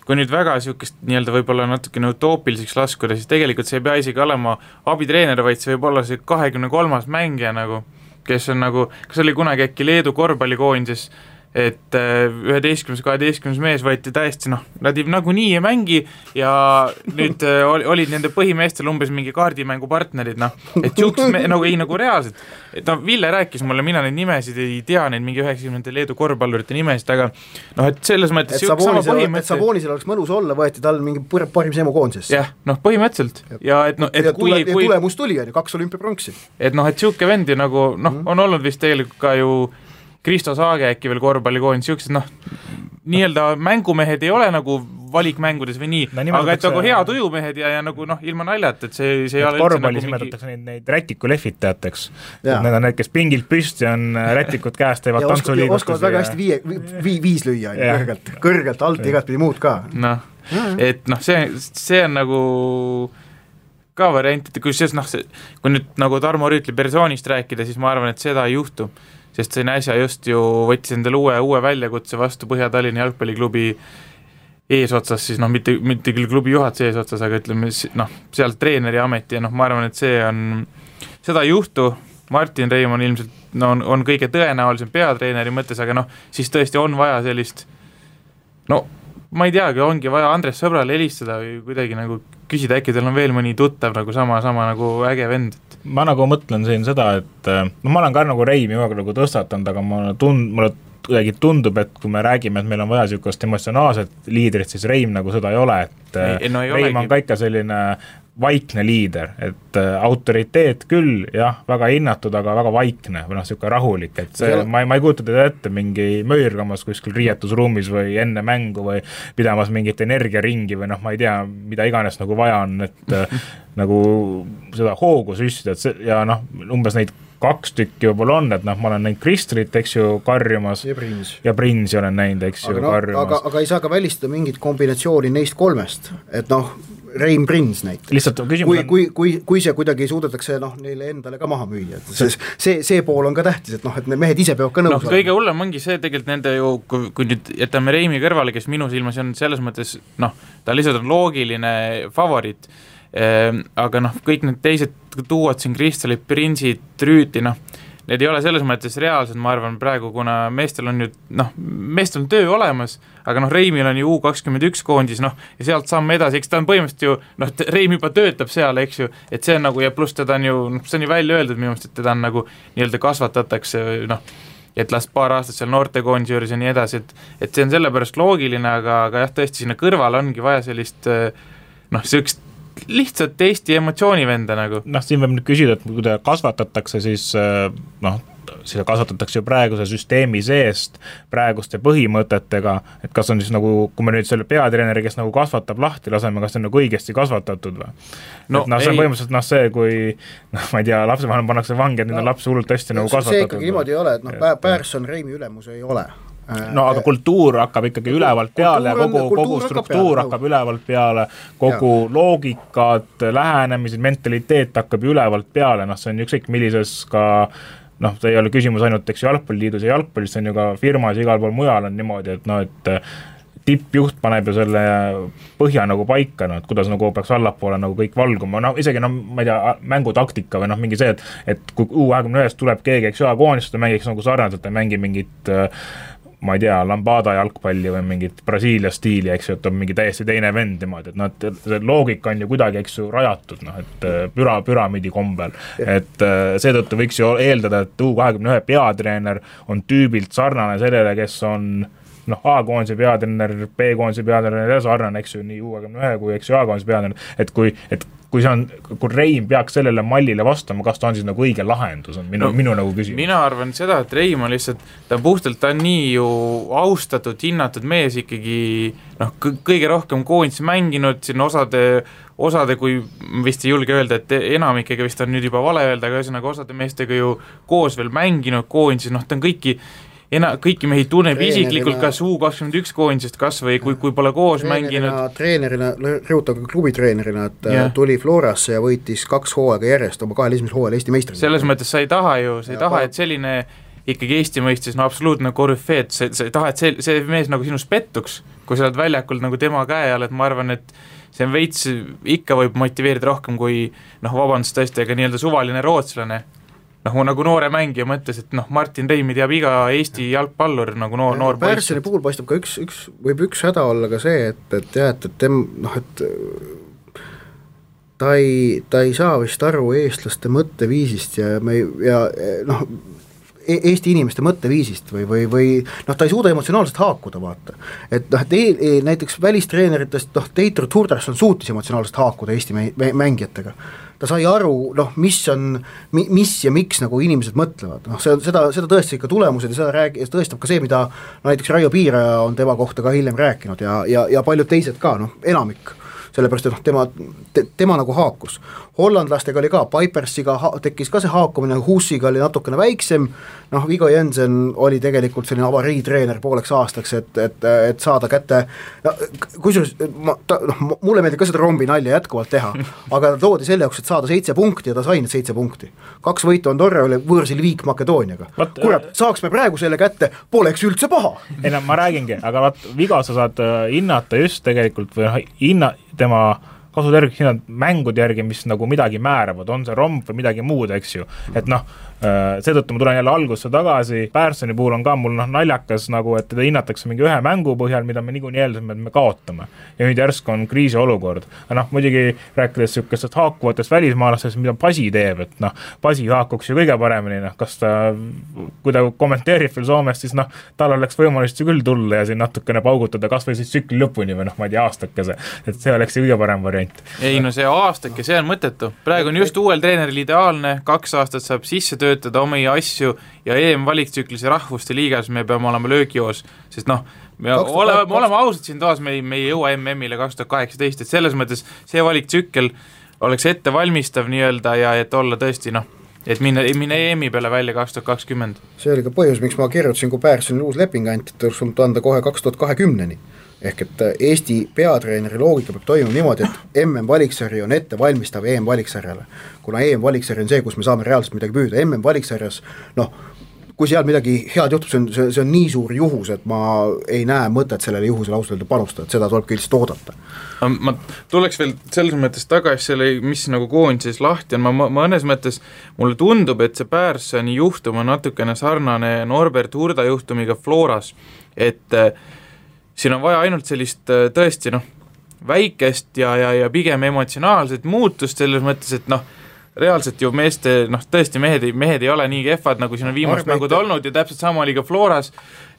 kui nüüd väga siukest nii-öelda võib-olla natukene utoopiliseks laskuda, siis tegelikult see ei pea isegi olema abitreener, vaid see võib olla see 23. mängija nagu, kes on nagu, kas oli kunagi äkki Leedu korvpallikoondises, et 11-12 mees võeti täiesti, nad nagu nii ei mängi ja nüüd olid nende põhimeestel umbes mingi kaardimängu partnerid, et nagu reaalselt, et Ville rääkis mulle, mina neid nimesid ei tea, neid mingi 90 Leedu korvpallurite nimesid, aga et selles mõttes et Sabonisel oleks mõnus olla, võeti tal mingi parim semu koondisesse. Jah, põhimõtteliselt ja tulemus tuli, 2 olümpiapronksi. Et siuke vendi nagu, on olnud vist tegelikult ka ju Kristo Saage äkki veel korvpallikoondis, siuksed nii-öelda mängumehed ei ole nagu valikmängudes või nii, aga et nagu hea tujumehed ja nagu ilma naljat, et see ei ole korvpallis nimetatakse neid rätiku lehvitajateks, need on need, kes pingilt püsti on rätikud käest, teevad tantsuliigustusi. Oskavad väga hästi viis lüüa, kõrgelt alt igat pidi muud ka. Et see on nagu ka variant, et kui nüüd nagu Tarmo Rüütli persoonist rääkida, siis ma arvan, et seda ei juhtu. Sest see äsja just ju võttis endale uue väljakutse vastu Põhja-Tallinna jalgpalliklubi eesotsas, siis mitte küll klubi juhatuse eesotsas, aga ütleme seal treeneri ameti ja ma arvan, et seda ei juhtu. Martin Reim on ilmselt on kõige tõenäolisem peatreeneri mõttes, aga siis tõesti on vaja sellist ma ei teagi, ongi vaja Andres Sõbrale helistada või kuidagi nagu küsida, äkki teil on veel mõni tuttav nagu sama nagu äge vend. Ma nagu mõtlen siin seda, et ma olen ka nagu Reimi nagu tõstatanud, aga mulle kuidagi tundub, et kui me räägime, et meil on vaja niisugust emotsionaalset liidrit, siis Reim nagu seda ei ole, et Reim on ka ikka selline vaikne liider, et autoriteet küll, jah, väga hinnatud, aga väga vaikne või niisugune rahulik, et ma ei kujuta teda ette mingi möörgamas kuskil riietusruumis või enne mängu või pidamas mingit energiaringi või ma ei tea, mida iganes nagu vaja on, et nagu seda hoogu süstida, ja umbes neid 2 tükki võib-olla on, et ma olen näinud Kristrit, eks ju, karjumas ja Prinsi olen näinud, eks ju, karjumas. Aga ei saa ka välistada mingit kombinatsiooni neist 3, et Reim Prins näiteks. Lihtsalt küsimus on... Kui see kuidagi suudetakse neile endale ka maha müüa, see pool on ka tähtis, et need mehed ise peavad ka nõus kõige hullem ongi see tegelikult nende ju, kui nüüd jätame Reimi kõrvale, kes minu silmas on selles mõttes, ta lihtsalt on loogiline favoriit, aga kõik need teised tuuad siin Kristalid, Prinsid, Rüüti, need ei ole selles mõttes reaalsed, ma arvan praegu, kuna meestel on meestel on töö olemas, aga Reimil on ju U21 koondis, ja sealt samme edasi, eks ta on põhimõtteliselt ju, Reim juba töötab seal, eks ju, et see on nagu, ja pluss teda on ju, see on ju välja öeldud minu meelest, et teda on nagu nii-öelda kasvatatakse, et las paar aastat seal noortekoondis juures ja nii edasi, et see on sellepärast loogiline, aga jah, tõesti sinna kõrval ongi vaja sellist, sellist lihtsalt Eesti emotsioonivenda nagu. Noh, siin võib nüüd küsida, et kui ta kasvatatakse, siis seda kasvatatakse ju praeguse süsteemi seest, praeguste põhimõtetega, et kas on siis nagu, kui me nüüd selle peatreeneri, kes nagu kasvatab lahti, laseme, kas see on nagu õigesti kasvatatud või? No, see on põhimõtteliselt see, kui ma ei tea, lapsevanem pannakse vangi, et nüüd on laps hullult hästi nagu kasvatatud. See ikkagi niimoodi ei ole, et Pärsson Reimi ülemus ei ole. No aga kultuur hakkab ikkagi ülevalt peale ja kogu struktuur hakkab ülevalt peale, kogu loogikad, lähenemised, mentaliteet hakkab ülevalt peale, see on ükskõik millises ka see ei ole küsimus ainult jalgpalliliidus ja jalgpallis, see on ju ka firmas igal pool mujal on niimoodi, et tippjuht paneb ju selle põhja nagu paika, et kuidas nagu peaks allapoole nagu kõik valguma, isegi ma ei tea, mängutaktika või mingi see, et kui U21 tuleb keegi, koondist mängiks nagu sarnaselt, ta mängi mingit ma ei tea, Lambada jalgpalli või mingit Brasiilia stiili, et on mingi täiesti teine vend niimoodi, et see loogika on ju kuidagi, rajatud, et püramiidi kombel, et seetõttu võiks ju eeldada, et U21 peatreener on tüübilt sarnane sellele, kes on A-koondise peatreener, B-koondise peatreener ja sarnane, nii U21 kui A-koondise peatreener, et kui Reim peaks sellele mallile vastama, kas ta on siis nagu õige lahendus, on minu nagu küsimus. Mina arvan seda, et Reim on lihtsalt, ta on nii ju austatud, hinnatud mees ikkagi, kõige rohkem koondis mänginud, siin osade, kui vist ei julge öelda, et enamikega vist on nüüd juba vale öelda, aga ühesõnaga osade meestega ju koos veel mänginud koondis, ta on kõiki mehi tunneb isiklikult, kas U21 koondisest kas või kui pole koos mänginud. Treenerina, rõhutab klubitreenerina, et tuli Florasse ja võitis 2 hooaega järjest oma 2 esimesel hooajal Eesti meistrina. Selles mõttes sa ei taha, et selline ikkagi Eesti mõistes absoluutne korüfeet, sa ei taha, et see mees nagu sinust pettuks, kui sa oled väljakul nagu tema käe all, et ma arvan, et see on veits ikka võib motiveerida rohkem kui vabandust tõesti, aga nii-öelda suvaline rootslane. Nagu noore mängija mõttes, et Martin Reimi teab iga Eesti jalgpallur nagu noor Pärssoni puhul paistab ka üks häda olla ka see, et ta ei saa vist aru eestlaste mõtteviisist ja Eesti inimeste mõtteviisist või ta ei suuda emotsionaalselt haakuda, vaata. Et näiteks välistreeneritest, Teitur Turdarson suutis emotsionaalselt haakuda Eesti mängijatega. Ta sai aru, mis ja miks nagu inimesed mõtlevad. Seda tõesti ikka tulemused ja seda tõestab ka see, mida näiteks Raio Piiraja on tema kohta ka hiljem rääkinud ja paljud teised ka, enamik. Sellepärast, et tema nagu haakus. Hollandlastega oli ka, Pipersiga tekkis ka see haakumine, Hussiga oli natukene väiksem, Viggo Jensen oli tegelikult selline avariitreener pooleks aastaks, et saada kätte, kusjuures mulle meeldib ka seda rombi nalja jätkuvalt teha, aga ta toodi selle jaoks, et saada 7 punkti ja ta sai need 7 punkti. 2 võitu Andorra oli võõrsil Viik Makedooniaga. Kurat, saaks me praegu selle kätte, poleks üldse paha. Ei, ma räägingi, aga Viggo sa saad hinnata just tegelikult või tema kasuterviks hinnad mängude järgi, mis nagu midagi määravad, on see romp või midagi muud, eks ju, et seetõttu ma tulen jälle algusse tagasi, Pärssoni puhul on ka mul naljakas nagu, et teda hinnatakse mingi ühe mängu põhjal, mida me niikuinii eeldasime, et me kaotame ja nüüd järsku on kriisiolukord, muidugi rääkides sükestest haakuvatest välismaalastest, mida Pasi teeb, et Pasi haakuks ju kõige paremini, kas ta, kui ta kommenteerib veel Soomest, siis tal oleks võimalust ju küll tulla ja siin natukene paugutada, kas või siis tsükli lõpuni või ma ei tea, aastakese, et see oleks kõige parem variant. Ei, see aastake, see on mõttetu. Praegu on just uuel treeneril ideaalne, 2 aastat saab sisse töötada omi asju ja EM-valiktsüklis ja rahvuste liigas me peame olema löögijoos, sest me oleme ausad siin toas, me ei jõua MM-ile 2018, et selles mõttes see valiktsükkel oleks ettevalmistav nii-öelda ja et olla tõesti, et minna EM-i peale välja 2020. See oli ka põhjus, miks ma kirjutasin, kui Pärssonil uus leping anti, et oleks anda kohe 2020-ni. Ehk et Eesti peatreeneri loogika peab toimuma niimoodi, et MM-valiksarja on ette valmistav EM-valiksarjale. Kuna EM-valiksarja on see, kus me saame reaalselt midagi püüda, MM-valiksarjas, kui seal midagi head juhtub, see on nii suur juhus, et ma ei näe mõtet sellele juhusele ausalt panustada, et seda tuleb ka lihtsalt oodata. Ma tuleks veel selles mõttes tagasi selle, mis nagu koondises lahti on, ma mõnes mõttes, mulle tundub, et see Pärssoni juhtum on natukene sarnane Norbert Hurda juhtumiga Floras, et siin on vaja ainult sellist tõesti väikest ja pigem emotsionaalset muutust selles mõttes, et reaalselt ju meeste, tõesti mehed ei ole nii kehvad, nagu siin on viimased mängud olnud ja täpselt sama oli ka Floras,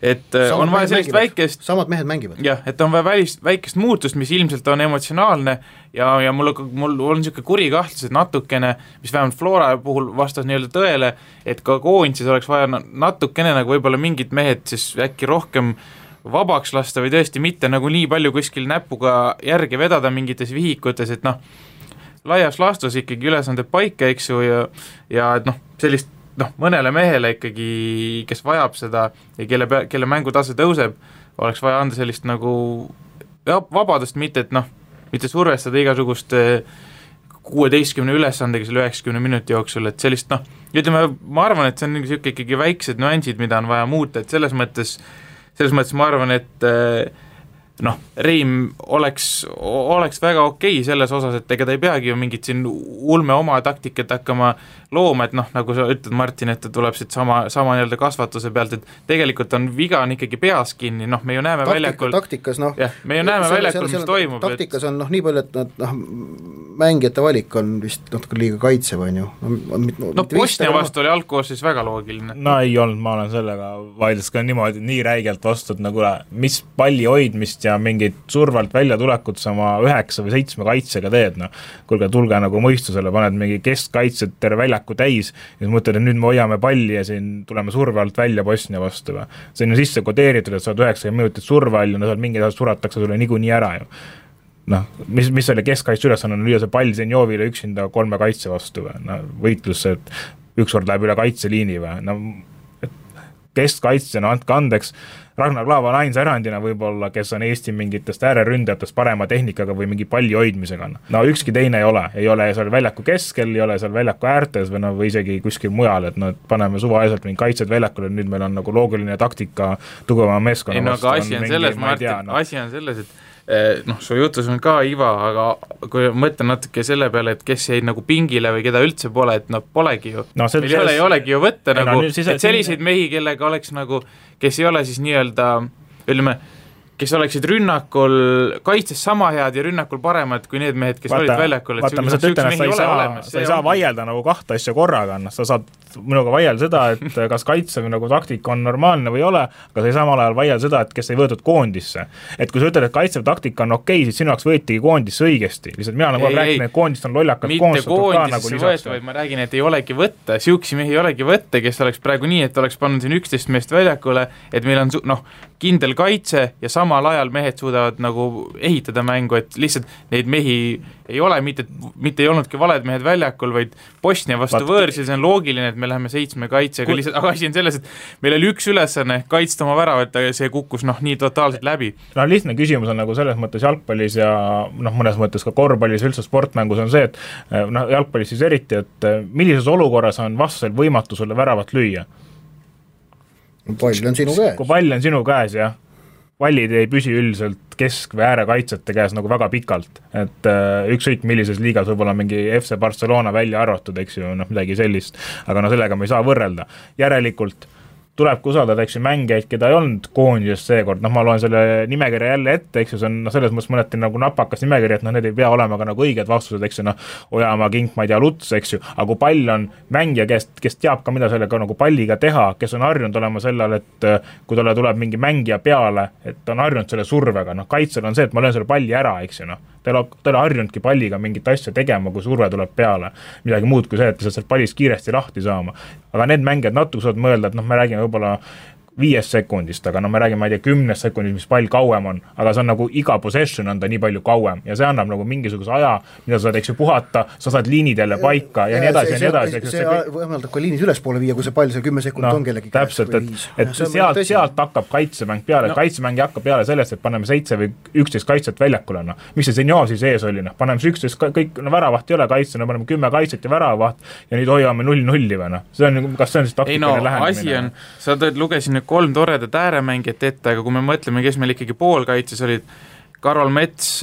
et samad on vaja sellist väikest samad mehed mängivad. Jah, et on vaja väikest muutust, mis ilmselt on emotsionaalne ja mul on niisugune kuri kahtlus, et natukene, mis vähemalt Flora puhul vastas nii-öelda tõele, et ka koondis oleks vaja natukene nagu võib-olla mingid mehed siis äkki rohkem vabaks lasta või tõesti mitte nagu nii palju kuskil näpuga järgi vedada mingites vihikutes, et laias laastus ikkagi ülesanded paika, eks ju, ja et sellist mõnele mehele ikkagi, kes vajab seda ja kelle mängutase tõuseb, oleks vaja anda sellist nagu vabadust, mitte et mitte survestada igasugust 16 ülesandega selle 90 minuti jooksul, et sellist ütleme, ma arvan, et see on niisugune ikkagi väiksed nüansid, mida on vaja muuta, et selles mõttes ma arvan, et Reim oleks väga okei selles osas, et ega ta ei peagi ju mingit siin ulme oma taktikat hakkama looma, et nagu sa ütled, Martin, et ta tuleb siit sama nii-öelda kasvatuse pealt, et tegelikult on viga on ikkagi peas kinni, me ju näeme väljakul taktikas, me ju näeme väljakul, mis toimub. Taktikas on nii palju, et mängijate valik on vist natuke liiga kaitsev, on ju. Bosnia vastu oli algkoosseisus väga loogiline. Ei olnud, ma olen sellega vaidles ka niimoodi nii räigelt vastu, et mis palli hoidmist ja mingit survalt välja tulekut sama 9 või 7 kaitsega teed, kuulge, tulge nagu mõistusele, paned mingi keskkaitset terve väljaku täis ja siis mõtled, et nüüd me hoiame palli ja siin tuleme surve alt välja Bosnia vastu. See on ju sisse kodeeritud, et sa oled 90 minutit surve all ja seal mingid asjad suratakse sulle niikuinii ära ju. Mis oli keskkaitse ülesanne on lüüa see pall Zenjovile üksinda 3 kaitse vastu või? Võitlus, et ükskord läheb üle kaitseliini või? Keskkaitsena, andke andeks, Ragnar Klaava on ainsa erandina võib-olla, kes on Eesti mingitest ääreründajatest parema tehnikaga või mingi palli hoidmisega. Ükski teine ei ole seal väljaku keskel, ei ole seal väljaku äärtes või isegi kuskil mujal, et paneme suvaeselt mingi kaitsed väljakul, et nüüd meil on nagu loogiline taktika tugevama meeskonna vastu. Aga asi on selles, Martin, asi on selles, et su jutus on ka Iva, aga kui mõtlen natuke selle peale, et kes jäid nagu pingile või keda üldse pole, et polegi ju. Meil ei olegi ju võtta et selliseid mehi, kellega oleks nagu, kes ei ole siis nii-öelda, ütleme, kes oleksid rünnakul kaitses sama head ja rünnakul paremad kui need mehed, kes olid väljakul. Vaata, ma ütlen, et sa ei saa vaielda nagu kahte asja korraga, sa saad minuga vaielda seda, et kas kaitsev nagu taktika on normaalne või ei ole, aga sa ei samal ajal vaielda seda, et kes ei võetud koondisse. Et kui sa ütled, et kaitsev taktika on okei, siis sinu jaoks võetigi koondisse õigesti. Lihtsalt mina nagu räägin, et koondist on lollakas koondistatud ka nagu lisaks. Vaid ma räägin, et ei olegi võtta, siuksi mehi ei olegi võtta, kes oleks praegu nii, et oleks pannud siin 11 meest väljakule, et meil on kindel kaitse ja samal ajal mehed suudavad nagu ehitada mängu, et lihtsalt neid mehi ei ole, mitte ei olnudki valed mehed väljakul, vaid Bosnia vastu võõrsil, see on loogiline, et me läheme 7 kaitsega, lihtsalt, aga asi on selles, et meil oli üks ülesanne kaitsta oma väravat, aga see kukkus nii totaalselt läbi. Lihtne küsimus on nagu selles mõttes jalgpallis ja mõnes mõttes ka korvpallis, üldse sportmängus on see, et jalgpallis siis eriti, et millises olukorras on vastasel võimatu sulle väravat lüüa? Pall on sinu käes. Kui pall on sinu käes, jah. Pallid ei püsi üldiselt kesk- või äärekaitsete käes nagu väga pikalt, et ükskõik millises liigas võib-olla mingi FC Barcelona välja arvatud, eks ju, midagi sellist, aga sellega me ei saa võrrelda. Järelikult tulebki usaldada, eks ju, mängijaid, keda ei olnud koondisest seekord, ma loen selle nimekirja jälle ette, eks ju, see on selles mõttes mõneti nagu napakas nimekiri, et need ei pea olema ka nagu õiged vastused, eks ju, Ojamaa, Kink, ma ei tea, Luts, eks ju, aga kui pall on mängija, kes teab ka, mida sellega nagu palliga teha, kes on harjunud olema sellel, et kui talle tuleb mingi mängija peale, et on harjunud selle survega, kaitsel on see, et ma löön selle palli ära, eks ju, ta ei harjunudki palliga mingit asja tegema, kui surve tuleb peale, midagi muud kui see, et sealt pallist kiiresti lahti saama. Aga need mängijad natuke saavad mõelda, et me räägime võib-olla 5 sekundist, aga me räägime, ma ei tea, 10 sekundist, mis pall kauem on, aga see on nagu iga possession on ta nii palju kauem ja see annab nagu mingisuguse aja, mida sa saad, eks ju, puhata, sa saad liinidele paika ja nii edasi ja nii edasi. See võimaldab ka liinis ülespoole viia, kui see pall see 10 sekundit on kellegi käes. Täpselt, et sealt hakkab kaitsemäng peale, kaitsemäng hakkab peale sellest, et paneme 7 või 11 kaitset väljakule, mis see Zenjov siis ees oli, paneme 11, kõik väravaht ei ole kaitse, paneme 10 kaitset ja väravaht ja nüüd hoiame 0-0 või see on, kas see on siis taktikaline lähenemine? Sa lugesin 3 toredat ääremängijat ette, aga kui me mõtleme, kes meil ikkagi poolkaitses olid, Karol Mets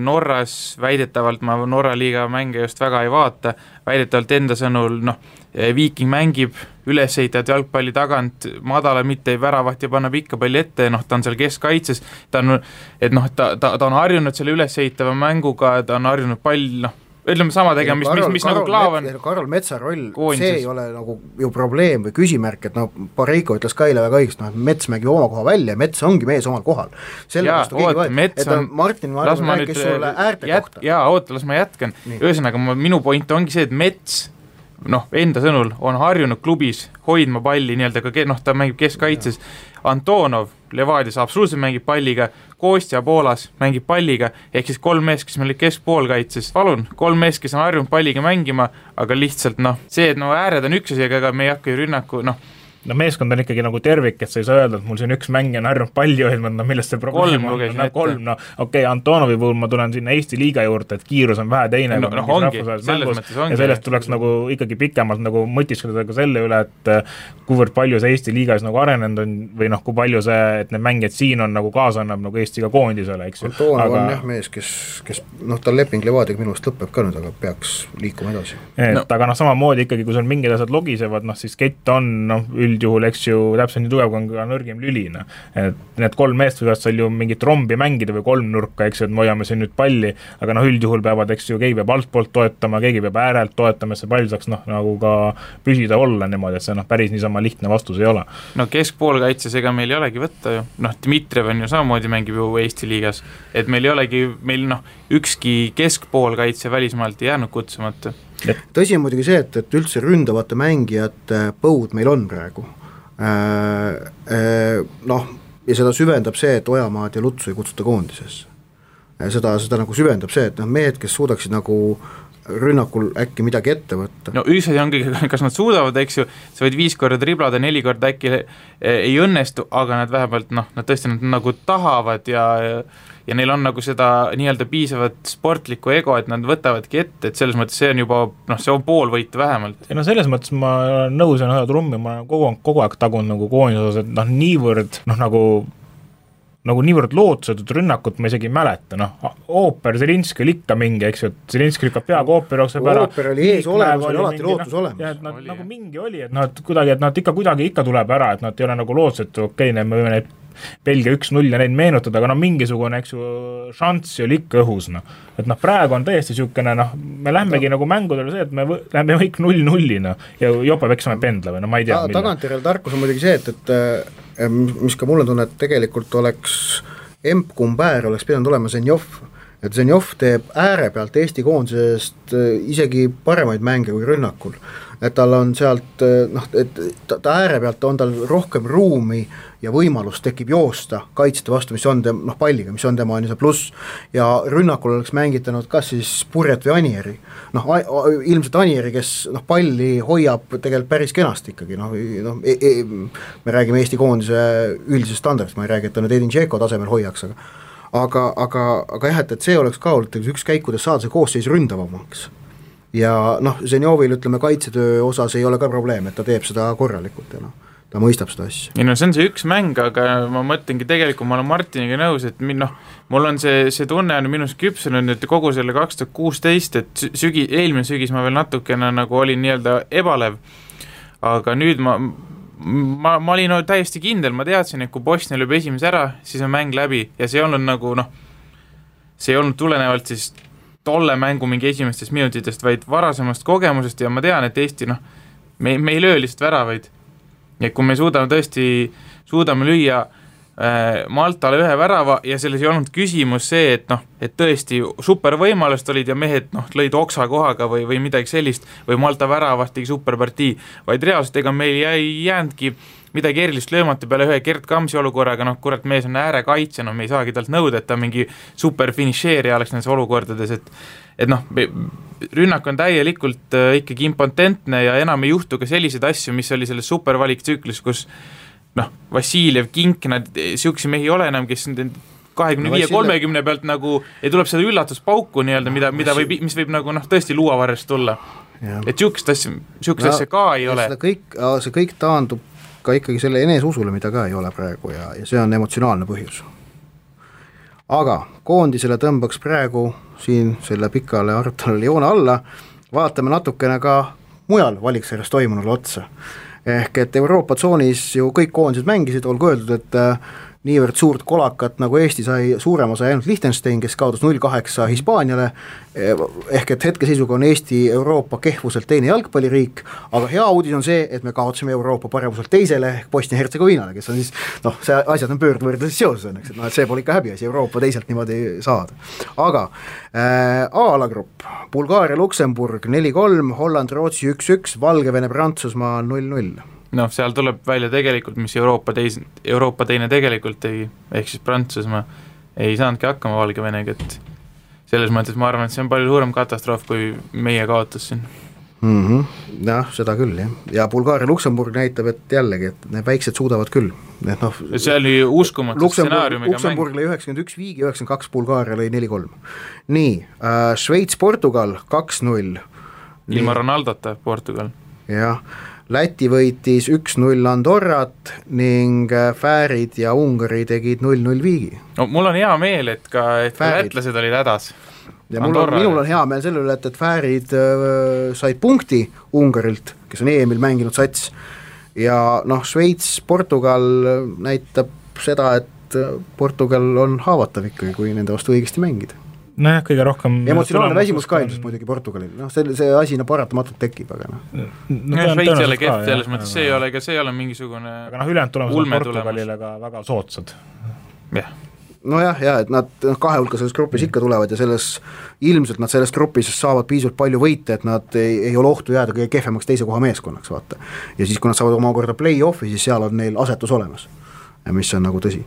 Norras väidetavalt, ma Norra liiga mänge just väga ei vaata, väidetavalt enda sõnul, Viiking mängib ülesehitavat jalgpalli tagant, madala mitte ei väravat ja paneb ikka palli ette, ta on seal keskkaitses, ta on harjunud selle ülesehitava mänguga, ta on harjunud pall, ütleme sama tegema, mis nagu Klaavan. Karol Metsa roll, see ei ole nagu ju probleem või küsimärk, et Pareiko ütles ka eile väga õigesti, Mets mängib oma koha välja ja Mets ongi mees omal kohal. Martin Marvin rääkis sulle äärte kohta. Las ma jätkan. Ühesõnaga, minu point ongi see, et Mets enda sõnul on harjunud klubis hoidma palli nii-öelda ka, ta mängib keskkaitses, Antonov Levadias absoluutselt mängib palliga, Kostja Poolas mängib palliga, ehk siis 3 mees, kes meil olid keskpoolkaitses, palun, 3 mees, kes on harjunud palliga mängima, aga lihtsalt see, et ääred on üks asi, aga me ei hakka ju rünnaku, meeskond on ikkagi nagu tervik, et sa ei saa öelda, et mul siin üks mängija on harjunud palli hoidma, millest see probleem on, kolm, Antonovi puhul ma tulen sinna Eesti liiga juurde, et kiirus on vähe teine, ja sellest tuleks nagu ikkagi pikemalt nagu mõtiskleda ka selle üle, et kuivõrd palju see Eesti liigas nagu arenenud on, või kui palju see, et need mängijad siin on nagu kaasa annab nagu Eestiga koondisele, eks ju. Antonov on jah mees, kes tal leping Levadiga minu eest lõpeb ka nüüd, aga peaks liikuma edasi. Aga samamoodi ikkagi, kui sul mingid asjad logisevad, siis kett on üldjuhul, eks ju, täpselt nii tugev, kui on ka nõrgim lülina. Et need 3 meest võivad seal ju mingit rombi mängida või 3 nurka, eks ju, et me hoiame siin nüüd palli, aga üldjuhul peavad, eks ju, keegi peab altpoolt toetama, keegi peab äärelt toetama, et see pall saaks nagu ka püsida olla niimoodi, et see päris niisama lihtne vastus ei ole. Keskpoolkaitses ega meil ei olegi võtta ju. Dmitrijev on ju samamoodi mängib ju Eesti liigas, et meil ei olegi, ükski keskpoolkaitse välismaalt ei jäänud kutsumata. Tõsi on muidugi see, et üldse ründavate mängijate põud meil on praegu. Ja seda süvendab see, et Ojamaad ja Lutsu ei kutsuta koondisesse. Seda nagu süvendab see, et mehed, kes suudaksid nagu rünnakul äkki midagi ette võtta. Üks asi ongi, kas nad suudavad, eks ju, sa võid 5 korda driblada, 4 korda äkki ei õnnestu, aga nad vähemalt, nad tõesti nad nagu tahavad ja neil on nagu seda nii-öelda piisavat sportlikku ego, et nad võtavadki ette, et selles mõttes see on juba, see on pool võitu vähemalt. Ja selles mõttes ma olen nõus ja trummi, ma kogu aeg tagun nagu koondis, et niivõrd nagu niivõrd lootusetut rünnakut ma isegi ei mäleta, Ooper, Zelinski oli ikka mingi, eks ju, et Zelinski lükkab peaga Ooper jookseb ära. Ooper oli ees olemas, oli alati lootus olemas. Ja, et nagu mingi oli, et nad kuidagi ikka tuleb ära, et nad ei ole nagu lootusetu, me võime neid Belgia 1-0 ja neid meenutada, aga mingisugune, eks ju, šanss oli ikka õhus, et praegu on täiesti siukene, me lähmegi nagu mängudele see, et me lähme kõik 0-0 ja jopa peksame pendla või ma ei tea. Tagantjärel tarkus on muidugi see, et mis ka mulle tunne, et tegelikult oleks Emp-Kumber oleks pidanud olema Zenjov, et Zenjov teeb ääre pealt Eesti koondisest isegi paremaid mänge kui rünnakul, et tal on sealt, et ta ääre pealt on tal rohkem ruumi ja võimalus tekib joosta kaitsete vastu, mis on palliga, mis on tema see pluss, ja rünnakul oleks mängitanud kas siis Purjet või Anieri, ilmselt Anieri, kes palli hoiab tegelikult päris kenasti ikkagi, me räägime Eesti koondise üldisest standardist, ma ei räägi, et ta nüüd Edin Džeko tasemel hoiaks, aga jah, et see oleks ka olnud üks käik, kuidas saada see koosseis ründavamaks. Ja Zenjovil, ütleme, kaitsetöö osas ei ole ka probleem, et ta teeb seda korralikult ja ta mõistab seda asja. See on see üks mäng, aga ma mõtlengi tegelikult, ma olen Martiniga nõus, et mul on see tunne on minust küpsenud nüüd kogu selle 2016, et eelmine sügis ma veel natukene nagu olin nii-öelda ebalev, aga nüüd ma olin täiesti kindel, ma teadsin, et kui Bosnia lööb esimese ära, siis on mäng läbi ja see ei olnud nagu see ei olnud tulenevalt siis tolle mängu mingi esimestest minutitest, vaid varasemast kogemusest ja ma tean, et Eesti me ei löö lihtsalt väravaid. Ja kui me suudame lüüa Maltale 1 värava ja selles ei olnud küsimus see, et tõesti super võimalust olid ja mehed lõid oksa kohaga või midagi sellist või Malta väravast tegi superpartii, vaid reaalselt ega meil ei jäänudki midagi erilist löömata peale ühe Gert Kamsi olukorraga, kurat mees on äärekaitse, me ei saagi talt nõuda, et ta mingi super finišeerija oleks nendes olukordades, et rünnak on täielikult ikkagi impotentne ja enam ei juhtu ka selliseid asju, mis oli selles supervaliktsüklis, kus Vassiljev, Kink, nad siuksi mehi ei ole enam, kes 25-30 pealt nagu ei tuleb seda üllatuspauku nii-öelda, mis võib nagu tõesti luuavarrest tulla. Ja. Et siukest asja ka ei ole. See kõik taandub ka ikkagi selle eneseusule, mida ka ei ole praegu ja see on emotsionaalne põhjus. Aga koondisele tõmbaks praegu siin selle pikale arutelule joone alla, vaatame natukene ka mujal valiksarjas toimunule otsa. Ehk et Euroopa tsoonis ju kõik koondised mängisid, olgu öeldud, et niivõrd suurt kolakat, nagu Eesti sai, suurema sai ainult Liechtenstein, kes kaotas 0-8 Hispaaniale, ehk et hetkeseisuga on Eesti Euroopa kehvuselt teine jalgpalliriik, aga hea uudis on see, et me kaotasime Euroopa paremuselt teisele ehk Bosnia-Hertsegoviinale, kes on siis, see asjad on pöördvõrdes seoses õnneks, et see pole ikka häbiasi Euroopa teiselt niimoodi saada. Aga A-alagrupp, Bulgaaria, Luksemburg 4-3, Holland, Rootsi 1-1, Valgevene, Prantsusmaa 0-0. Noh, seal tuleb välja tegelikult, mis Euroopa teine tegelikult tegi, ehk siis Prantsusmaa ei saanudki hakkama Valgevenega, et selles mõttes ma arvan, et see on palju suurem katastroof, kui meie kaotus siin. Jah, seda küll, jah. Ja Bulgaaria Luksemburg näitab, et jällegi, et need väiksed suudavad küll. Et see oli uskumatu stsenaariumiga Luksemburg lõi 91 viigi, 92 Bulgaaria lõi 4-3. Nii, Šveits, Portugal 2-0. Ilma Ronaldota Portugal. Jah. Läti võitis 1-0 Andorrat ning Fäärid ja Ungari tegid 0-0 viigi. No, mul on hea meel, et ka lätlased olid hädas. Ja minul on hea meel selle üle, et Fäärid said punkti Ungarilt, kes on EM-il mänginud sats. Ja Šveits, Portugal näitab seda, et Portugal on haavatav ikkagi, kui nende vastu õigesti mängida. Nojah, kõige rohkem emotsionaalne väsimus ka ilmselt muidugi Portugalil, see asi paratamatult tekib, aga Šveits ei ole kehv, selles mõttes see ei ole mingisugune aga ülejäänud tulemused on Portugalile ka väga soodsad. Nojah, et nad kahe hulka selles grupis ikka tulevad ja ilmselt nad selles grupis saavad piisavalt palju võite, et nad ei ole ohtu jääda kõige kehvemaks teise koha meeskonnaks, vaata. Ja siis, kui nad saavad omakorda play-offi, siis seal on neil asetus olemas, mis on nagu tõsi.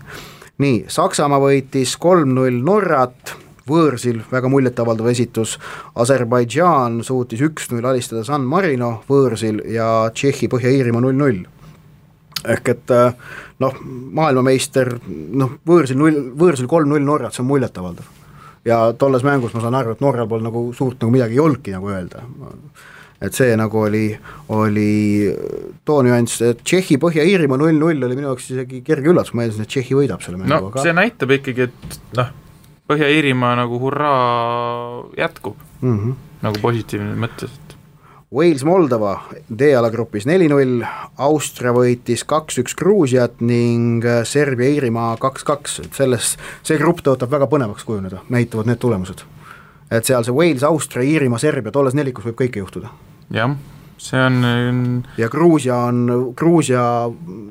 Nii, Saksamaa võitis 3-0 Norrat, võõrsil väga muljetavaldav esitus, Aserbaidžaan suutis 1-0 alistada San Marino võõrsil ja Tšehhi Põhja-Iirimaa 0-0. Ehk et maailmameister, võõrsil 3-0 Norrat, see on muljetavaldav. Ja tolles mängus ma saan aru, et Norral pole nagu suurt nagu midagi ei olnudki nagu öelda. Et see nagu oli too nüanss, et Tšehhi Põhja-Iirimaa 0-0 oli minu jaoks isegi kerge üllatus, ma eeldasin, et Tšehhi võidab selle mängu. See näitab ikkagi, et Põhja-Iirimaa nagu hurraa jätkub, nagu positiivne mõttes. Wales, Moldova D-alagrupis 4-0, Austria võitis 2-1 Gruusiat ning Serbia, Iirimaa 2-2, see grupp tõotab väga põnevaks kujuneda, näitavad need tulemused. Et seal see Wales, Austria, Iirimaa, Serbia, tolles nelikus võib kõike juhtuda. Jah, see on ja Gruusia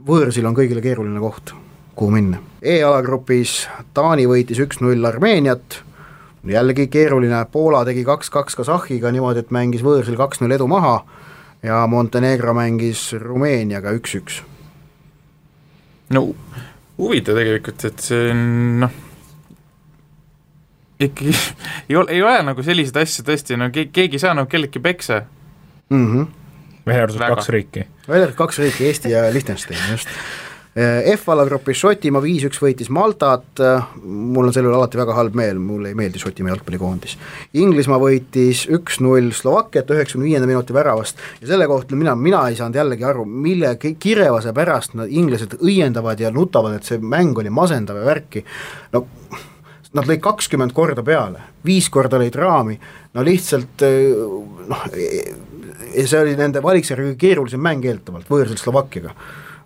võõrsil on kõigile keeruline koht, kuhu minna. E-alagrupis Taani võitis 1-0 Armeeniat, jällegi keeruline, Poola tegi 2-2 Kasahhiga niimoodi, et mängis võõrsil 2-0 edu maha ja Montenegro mängis Rumeeniaga 1-1. No huvitav tegelikult, et see on ikkagi ei ole nagu sellised asju tõesti, keegi saa nagu kellegi peksa. Väherdus 2 riiki. Väherdus 2 riiki, Eesti ja Liechtenstein, just. F-alagrupis Šotimaa 5-1 võitis Maltat, mul on selle üle alati väga halb meel, mulle ei meeldi Šotimaa jalgpallikoondis. Inglismaa võitis 1-0 Slovakkiat 95. minuti väravast ja selle kohta mina ei saanud jällegi aru, mille kirevase pärast nad inglased õiendavad ja nutavad, et see mäng oli masendav ja värki. Nad lõid 20 korda peale, 5 korda lõid raami, lihtsalt see oli nende valiksjärgi keerulisem mäng eeltavalt võõrsil Slovakkiaga.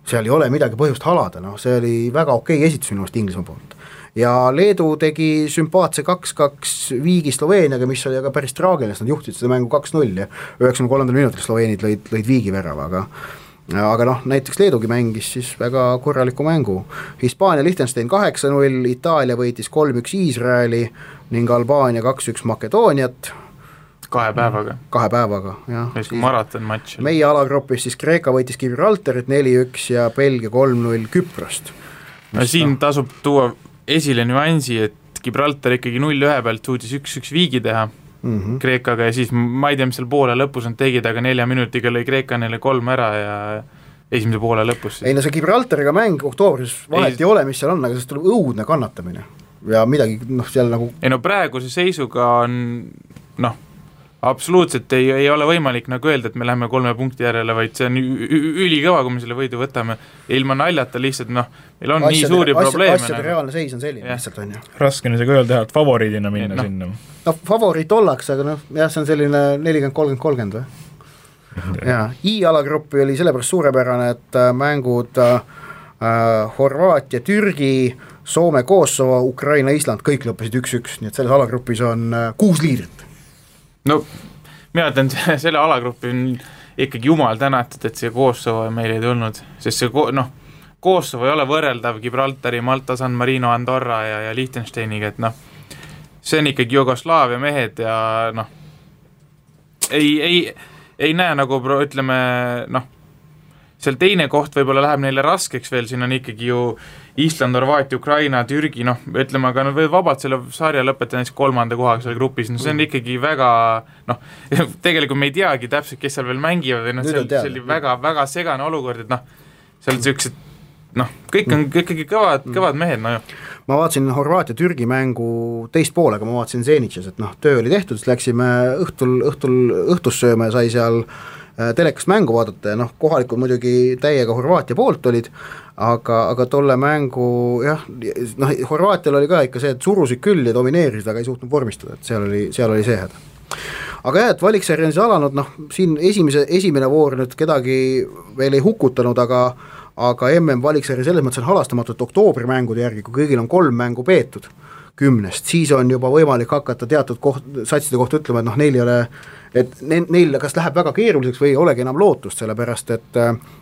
Seal ei ole midagi põhjust halada, see oli väga okei esitus minu meelest Inglismaa poolt. Ja Leedu tegi sümpaatse 2-2 viigi Sloveeniaga, mis oli aga päris traagiline, nad juhtisid seda mängu 2-0 ja 93. minutil Sloveenid lõid viigi värava, aga näiteks Leedugi mängis siis väga korraliku mängu. Hispaania Liechtenstein 8-0, Itaalia võitis 3-1 Iisraeli ning Albaania 2-1 Makedooniat. 2 päevaga. 2 päevaga, jah. Maraton matš. Meie alagrupis siis Kreeka võitis Gibraltarit 4-1 ja Belgia 3-0 Küprost. Siin tasub tuua esile nüansi, et Gibraltar ikkagi 0-1 pealt suutis 1-1 viigi teha Kreekaga ja siis ma ei tea, mis seal poole lõpus on tegid, aga 4 minutiga lõi Kreeka neile 3 ära ja esimese poole lõpus. Ei see Gibraltariga mäng oktoobris vahet ei ole, mis seal on, aga sellest tuleb õudne kannatamine ja midagi seal nagu ei praeguse seisuga on absoluutselt ei ole võimalik nagu öelda, et me läheme 3 punkti järele, vaid see on ülikõva, kui me selle võidu võtame. Ilma naljata lihtsalt, meil on nii suuri probleeme. Asjade reaalne seis on selline, lihtsalt on ju. Raske on isegi öelda, et favoriidina minna sinna. Favoriit ollakse, aga see on selline 40-30-30 või? I-alagruppi oli sellepärast suurepärane, et mängud Horvaatia, Türgi, Soome, Kosovo, Ukraina, Island, kõik lõppesid 1-1, nii et selles alagrupis on 6 liidrit. No mina ütlen, selle alagrupi on ikkagi jumal tänatud, et see Kosovo meil ei tulnud, sest see Kosovo ei ole võrreldav Gibraltari, Malta, San Marino, Andorra ja Liechtensteiniga, et see on ikkagi Jugoslaavia mehed ja ei näe nagu ütleme, seal teine koht võib-olla läheb neile raskeks veel, siin on ikkagi ju Island, Horvaatia, Ukraina, Türgi, ütleme, aga nad võivad vabalt selle sarja lõpetada näiteks 3. kohaga seal grupis, see on ikkagi väga, tegelikult me ei teagi täpselt, kes seal veel mängivad või see oli väga, väga segane olukord, et seal sellised kõik on ikkagi kõvad mehed, Ma vaatasin Horvaatia Türgi mängu teist poolega, ma vaatasin Zenitšas, et töö oli tehtud, siis läksime õhtus sööma ja sai seal telekast mängu vaadata ja kohalikud muidugi täiega Horvaatia poolt olid, aga tolle mängu Horvaatial oli ka ikka see, et surusid küll ja domineerisid, aga ei suutnud vormistada, et seal oli see häda. Aga jah, et valiksarja on siis alanud, siin esimene voor nüüd kedagi veel ei hukutanud, aga MM valiksarja selles mõttes on halastamatu, et oktoobri mängude järgi, kui kõigil on 3 mängu peetud 10, siis on juba võimalik hakata teatud satside kohta ütlema, et neil ei ole, et neil kas läheb väga keeruliseks või ei olegi enam lootust, sellepärast et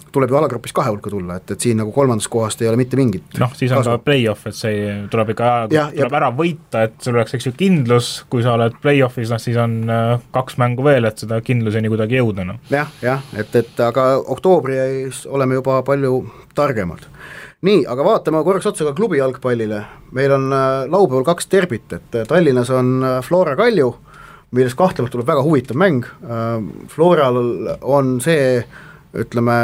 tuleb ju alagrupis 2 hulka tulla, et siin nagu 3. kohast ei ole mitte mingit siis on ka play-off, et see tuleb ikka tuleb ära võita, et sul oleks eks ju kindlus, kui sa oled play-offis, siis on 2 mängu veel, et seda kindluseni kuidagi jõuda. Jah, et aga oktoobris oleme juba palju targemad. Nii, aga vaatame korraks otsa ka klubi jalgpallile. Meil on laupäeval 2 derbit, et Tallinnas on Flora Kalju, millest kahtlemalt tuleb väga huvitav mäng. Floral on see, ütleme,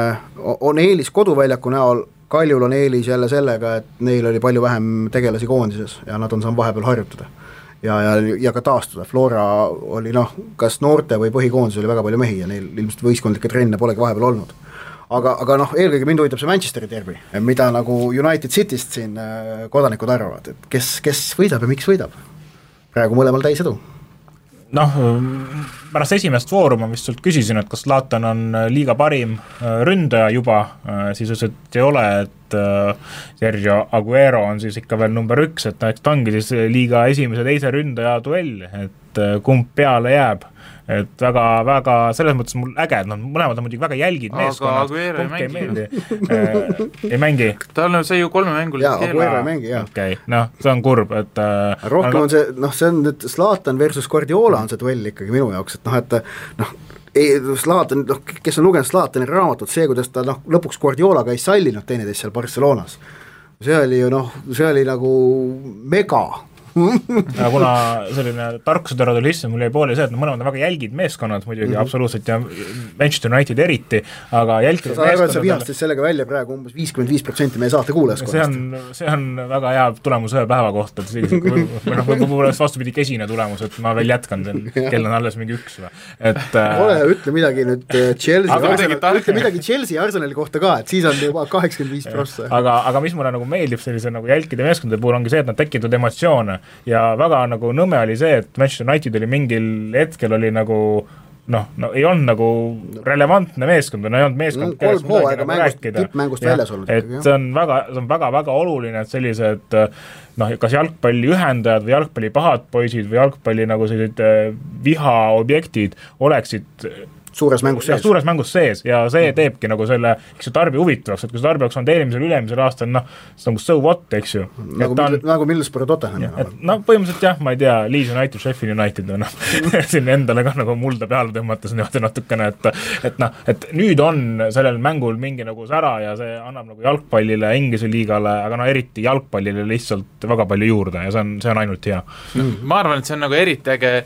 on eelis koduväljaku näol, Kaljul on eelis jälle sellega, et neil oli palju vähem tegelasi koondises ja nad on saanud vahepeal harjutada ja ka taastuda. Flora oli kas noorte või põhikoondis oli väga palju mehi ja neil ilmselt võistkondlikke trenne polegi vahepeal olnud. Aga eelkõige mind huvitab see Manchesteri derbi, mida nagu United Cityst siin kodanikud arvavad, et kes võidab ja miks võidab? Praegu mõlemal täis edu. Pärast esimest vooru ma vist sult küsisin, et kas Zlatan on liiga parim ründaja juba, siis ütles, et ei ole, et Sergio Aguero on siis ikka veel number 1, et ta ongi siis liiga esimese teise ründaja duell, et kumb peale jääb. Et väga selles mõttes mul äge, et mõlemad on muidugi väga jälgid meeskonnad. Aga Aguero ei mängi. Tal on see ju 3 mängul. Jaa, Aguero ei mängi, jah. Okei, see on kurb, et rohkem on see, see on nüüd Zlatan versus Guardiola on see duell ikkagi minu jaoks, et Zlatan, kes on lugenud Zlatani raamatut, see, kuidas ta lõpuks Guardiolaga ei sallinud teineteist seal Barcelonas. See oli ju see oli nagu mega ja kuna selline tarkusõdera tuli sisse, mul jäi pooli see, et mõlemad on väga jälgid meeskonnad muidugi absoluutselt ja Manchester United eriti, aga jälgid meeskonnad... Sa vihastas sellega välja praegu umbes 55% meie saate kuulajaskonnast. See on väga hea tulemus ühe päeva kohta, võib-olla vastupidi kesine tulemus, et ma veel jätkan, kell on alles mingi 1 ole, ütle midagi nüüd Chelsea Arsenali kohta ka, et siis on juba 85%. Aga mis mulle nagu meeldib sellise nagu jälkide meeskondade puhul ongi see, et nad tekitavad emotsioone ja väga nagu nõme oli see, et Manchester United oli mingil hetkel oli nagu ei olnud nagu relevantne meeskond, ei olnud meeskond, kellest midagi nagu rääkida. Tippmängust väljas olnud. Et see on väga oluline, et sellised kas jalgpalli ühendajad või jalgpalli pahad poisid või jalgpalli nagu sellised vihaobjektid oleksid suures mängus sees ja see teebki nagu selle, eks ju, tarbi huvitavaks, et kui see tarbi oleks olnud ülemisel aastal, see on nagu so what, eks ju. Nagu Middlesbrough Tottenham. Põhimõtteliselt jah, ma ei tea, Leeds United, Sheffield United on siin endale ka nagu mulda peale tõmmates natukene, et nüüd on sellel mängul mingi nagu sära ja see annab nagu jalgpallile, Inglise liigale, aga eriti jalgpallile lihtsalt väga palju juurde ja see on ainult hea. Ma arvan, et see on nagu eriti äge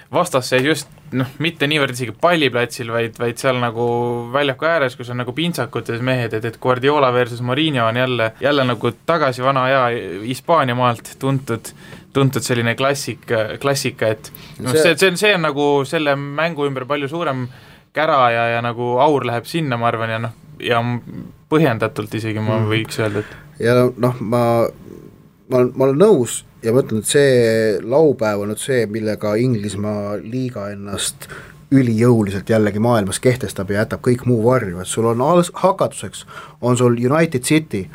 vastasseis just mitte niivõrd isegi palliplatsil, vaid seal nagu väljaku ääres, kus on nagu pintsakutes mehed, et Guardiola versus Mourinho on jälle nagu tagasi vana aja Hispaania maalt tuntud selline klassika, et see on nagu selle mängu ümber palju suurem kära ja nagu aur läheb sinna, ma arvan, ja põhjendatult isegi ma võiks öelda, et ja ma olen nõus ja ma ütlen, et see laupäev on nüüd see, millega Inglismaa liiga ennast ülijõuliselt jällegi maailmas kehtestab ja jätab kõik muu varju, et sul on hakatuseks, on sul United City,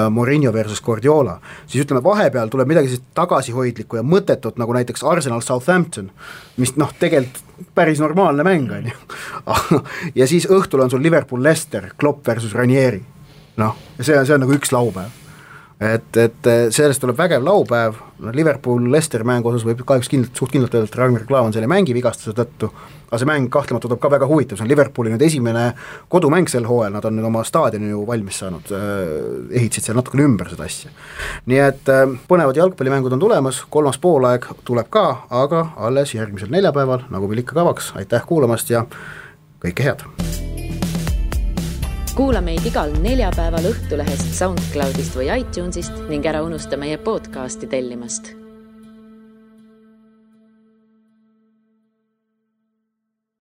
Mourinho versus Guardiola, siis ütleme vahepeal tuleb midagi tagasihoidlikku ja mõttetut, nagu näiteks Arsenal Southampton, mis tegelikult päris normaalne mäng on ju. Ja siis õhtul on sul Liverpool Leicester, Klopp versus Ranieri, ja see on nagu üks laupäev. Et sellest tuleb vägev laupäev, Liverpool Leicester mängu osas võib kahjuks suht kindlalt öelda, et Ragnar Klavan selle mängi vigastuse tõttu, aga see mäng kahtlemata tuleb ka väga huvitav, see on Liverpooli nüüd esimene kodumäng sel hooajal, nad on nüüd oma staadioni ju valmis saanud, ehitasid seal natukene ümber seda asja. Nii et põnevad jalgpallimängud on tulemas, 3. poolaeg tuleb ka, aga alles järgmisel neljapäeval, nagu meil ikka kavaks, aitäh kuulamast ja kõike head! Kuula meid igal neljapäeval Õhtulehest, SoundCloudist või iTunesist ning ära unusta meie podcasti tellimast.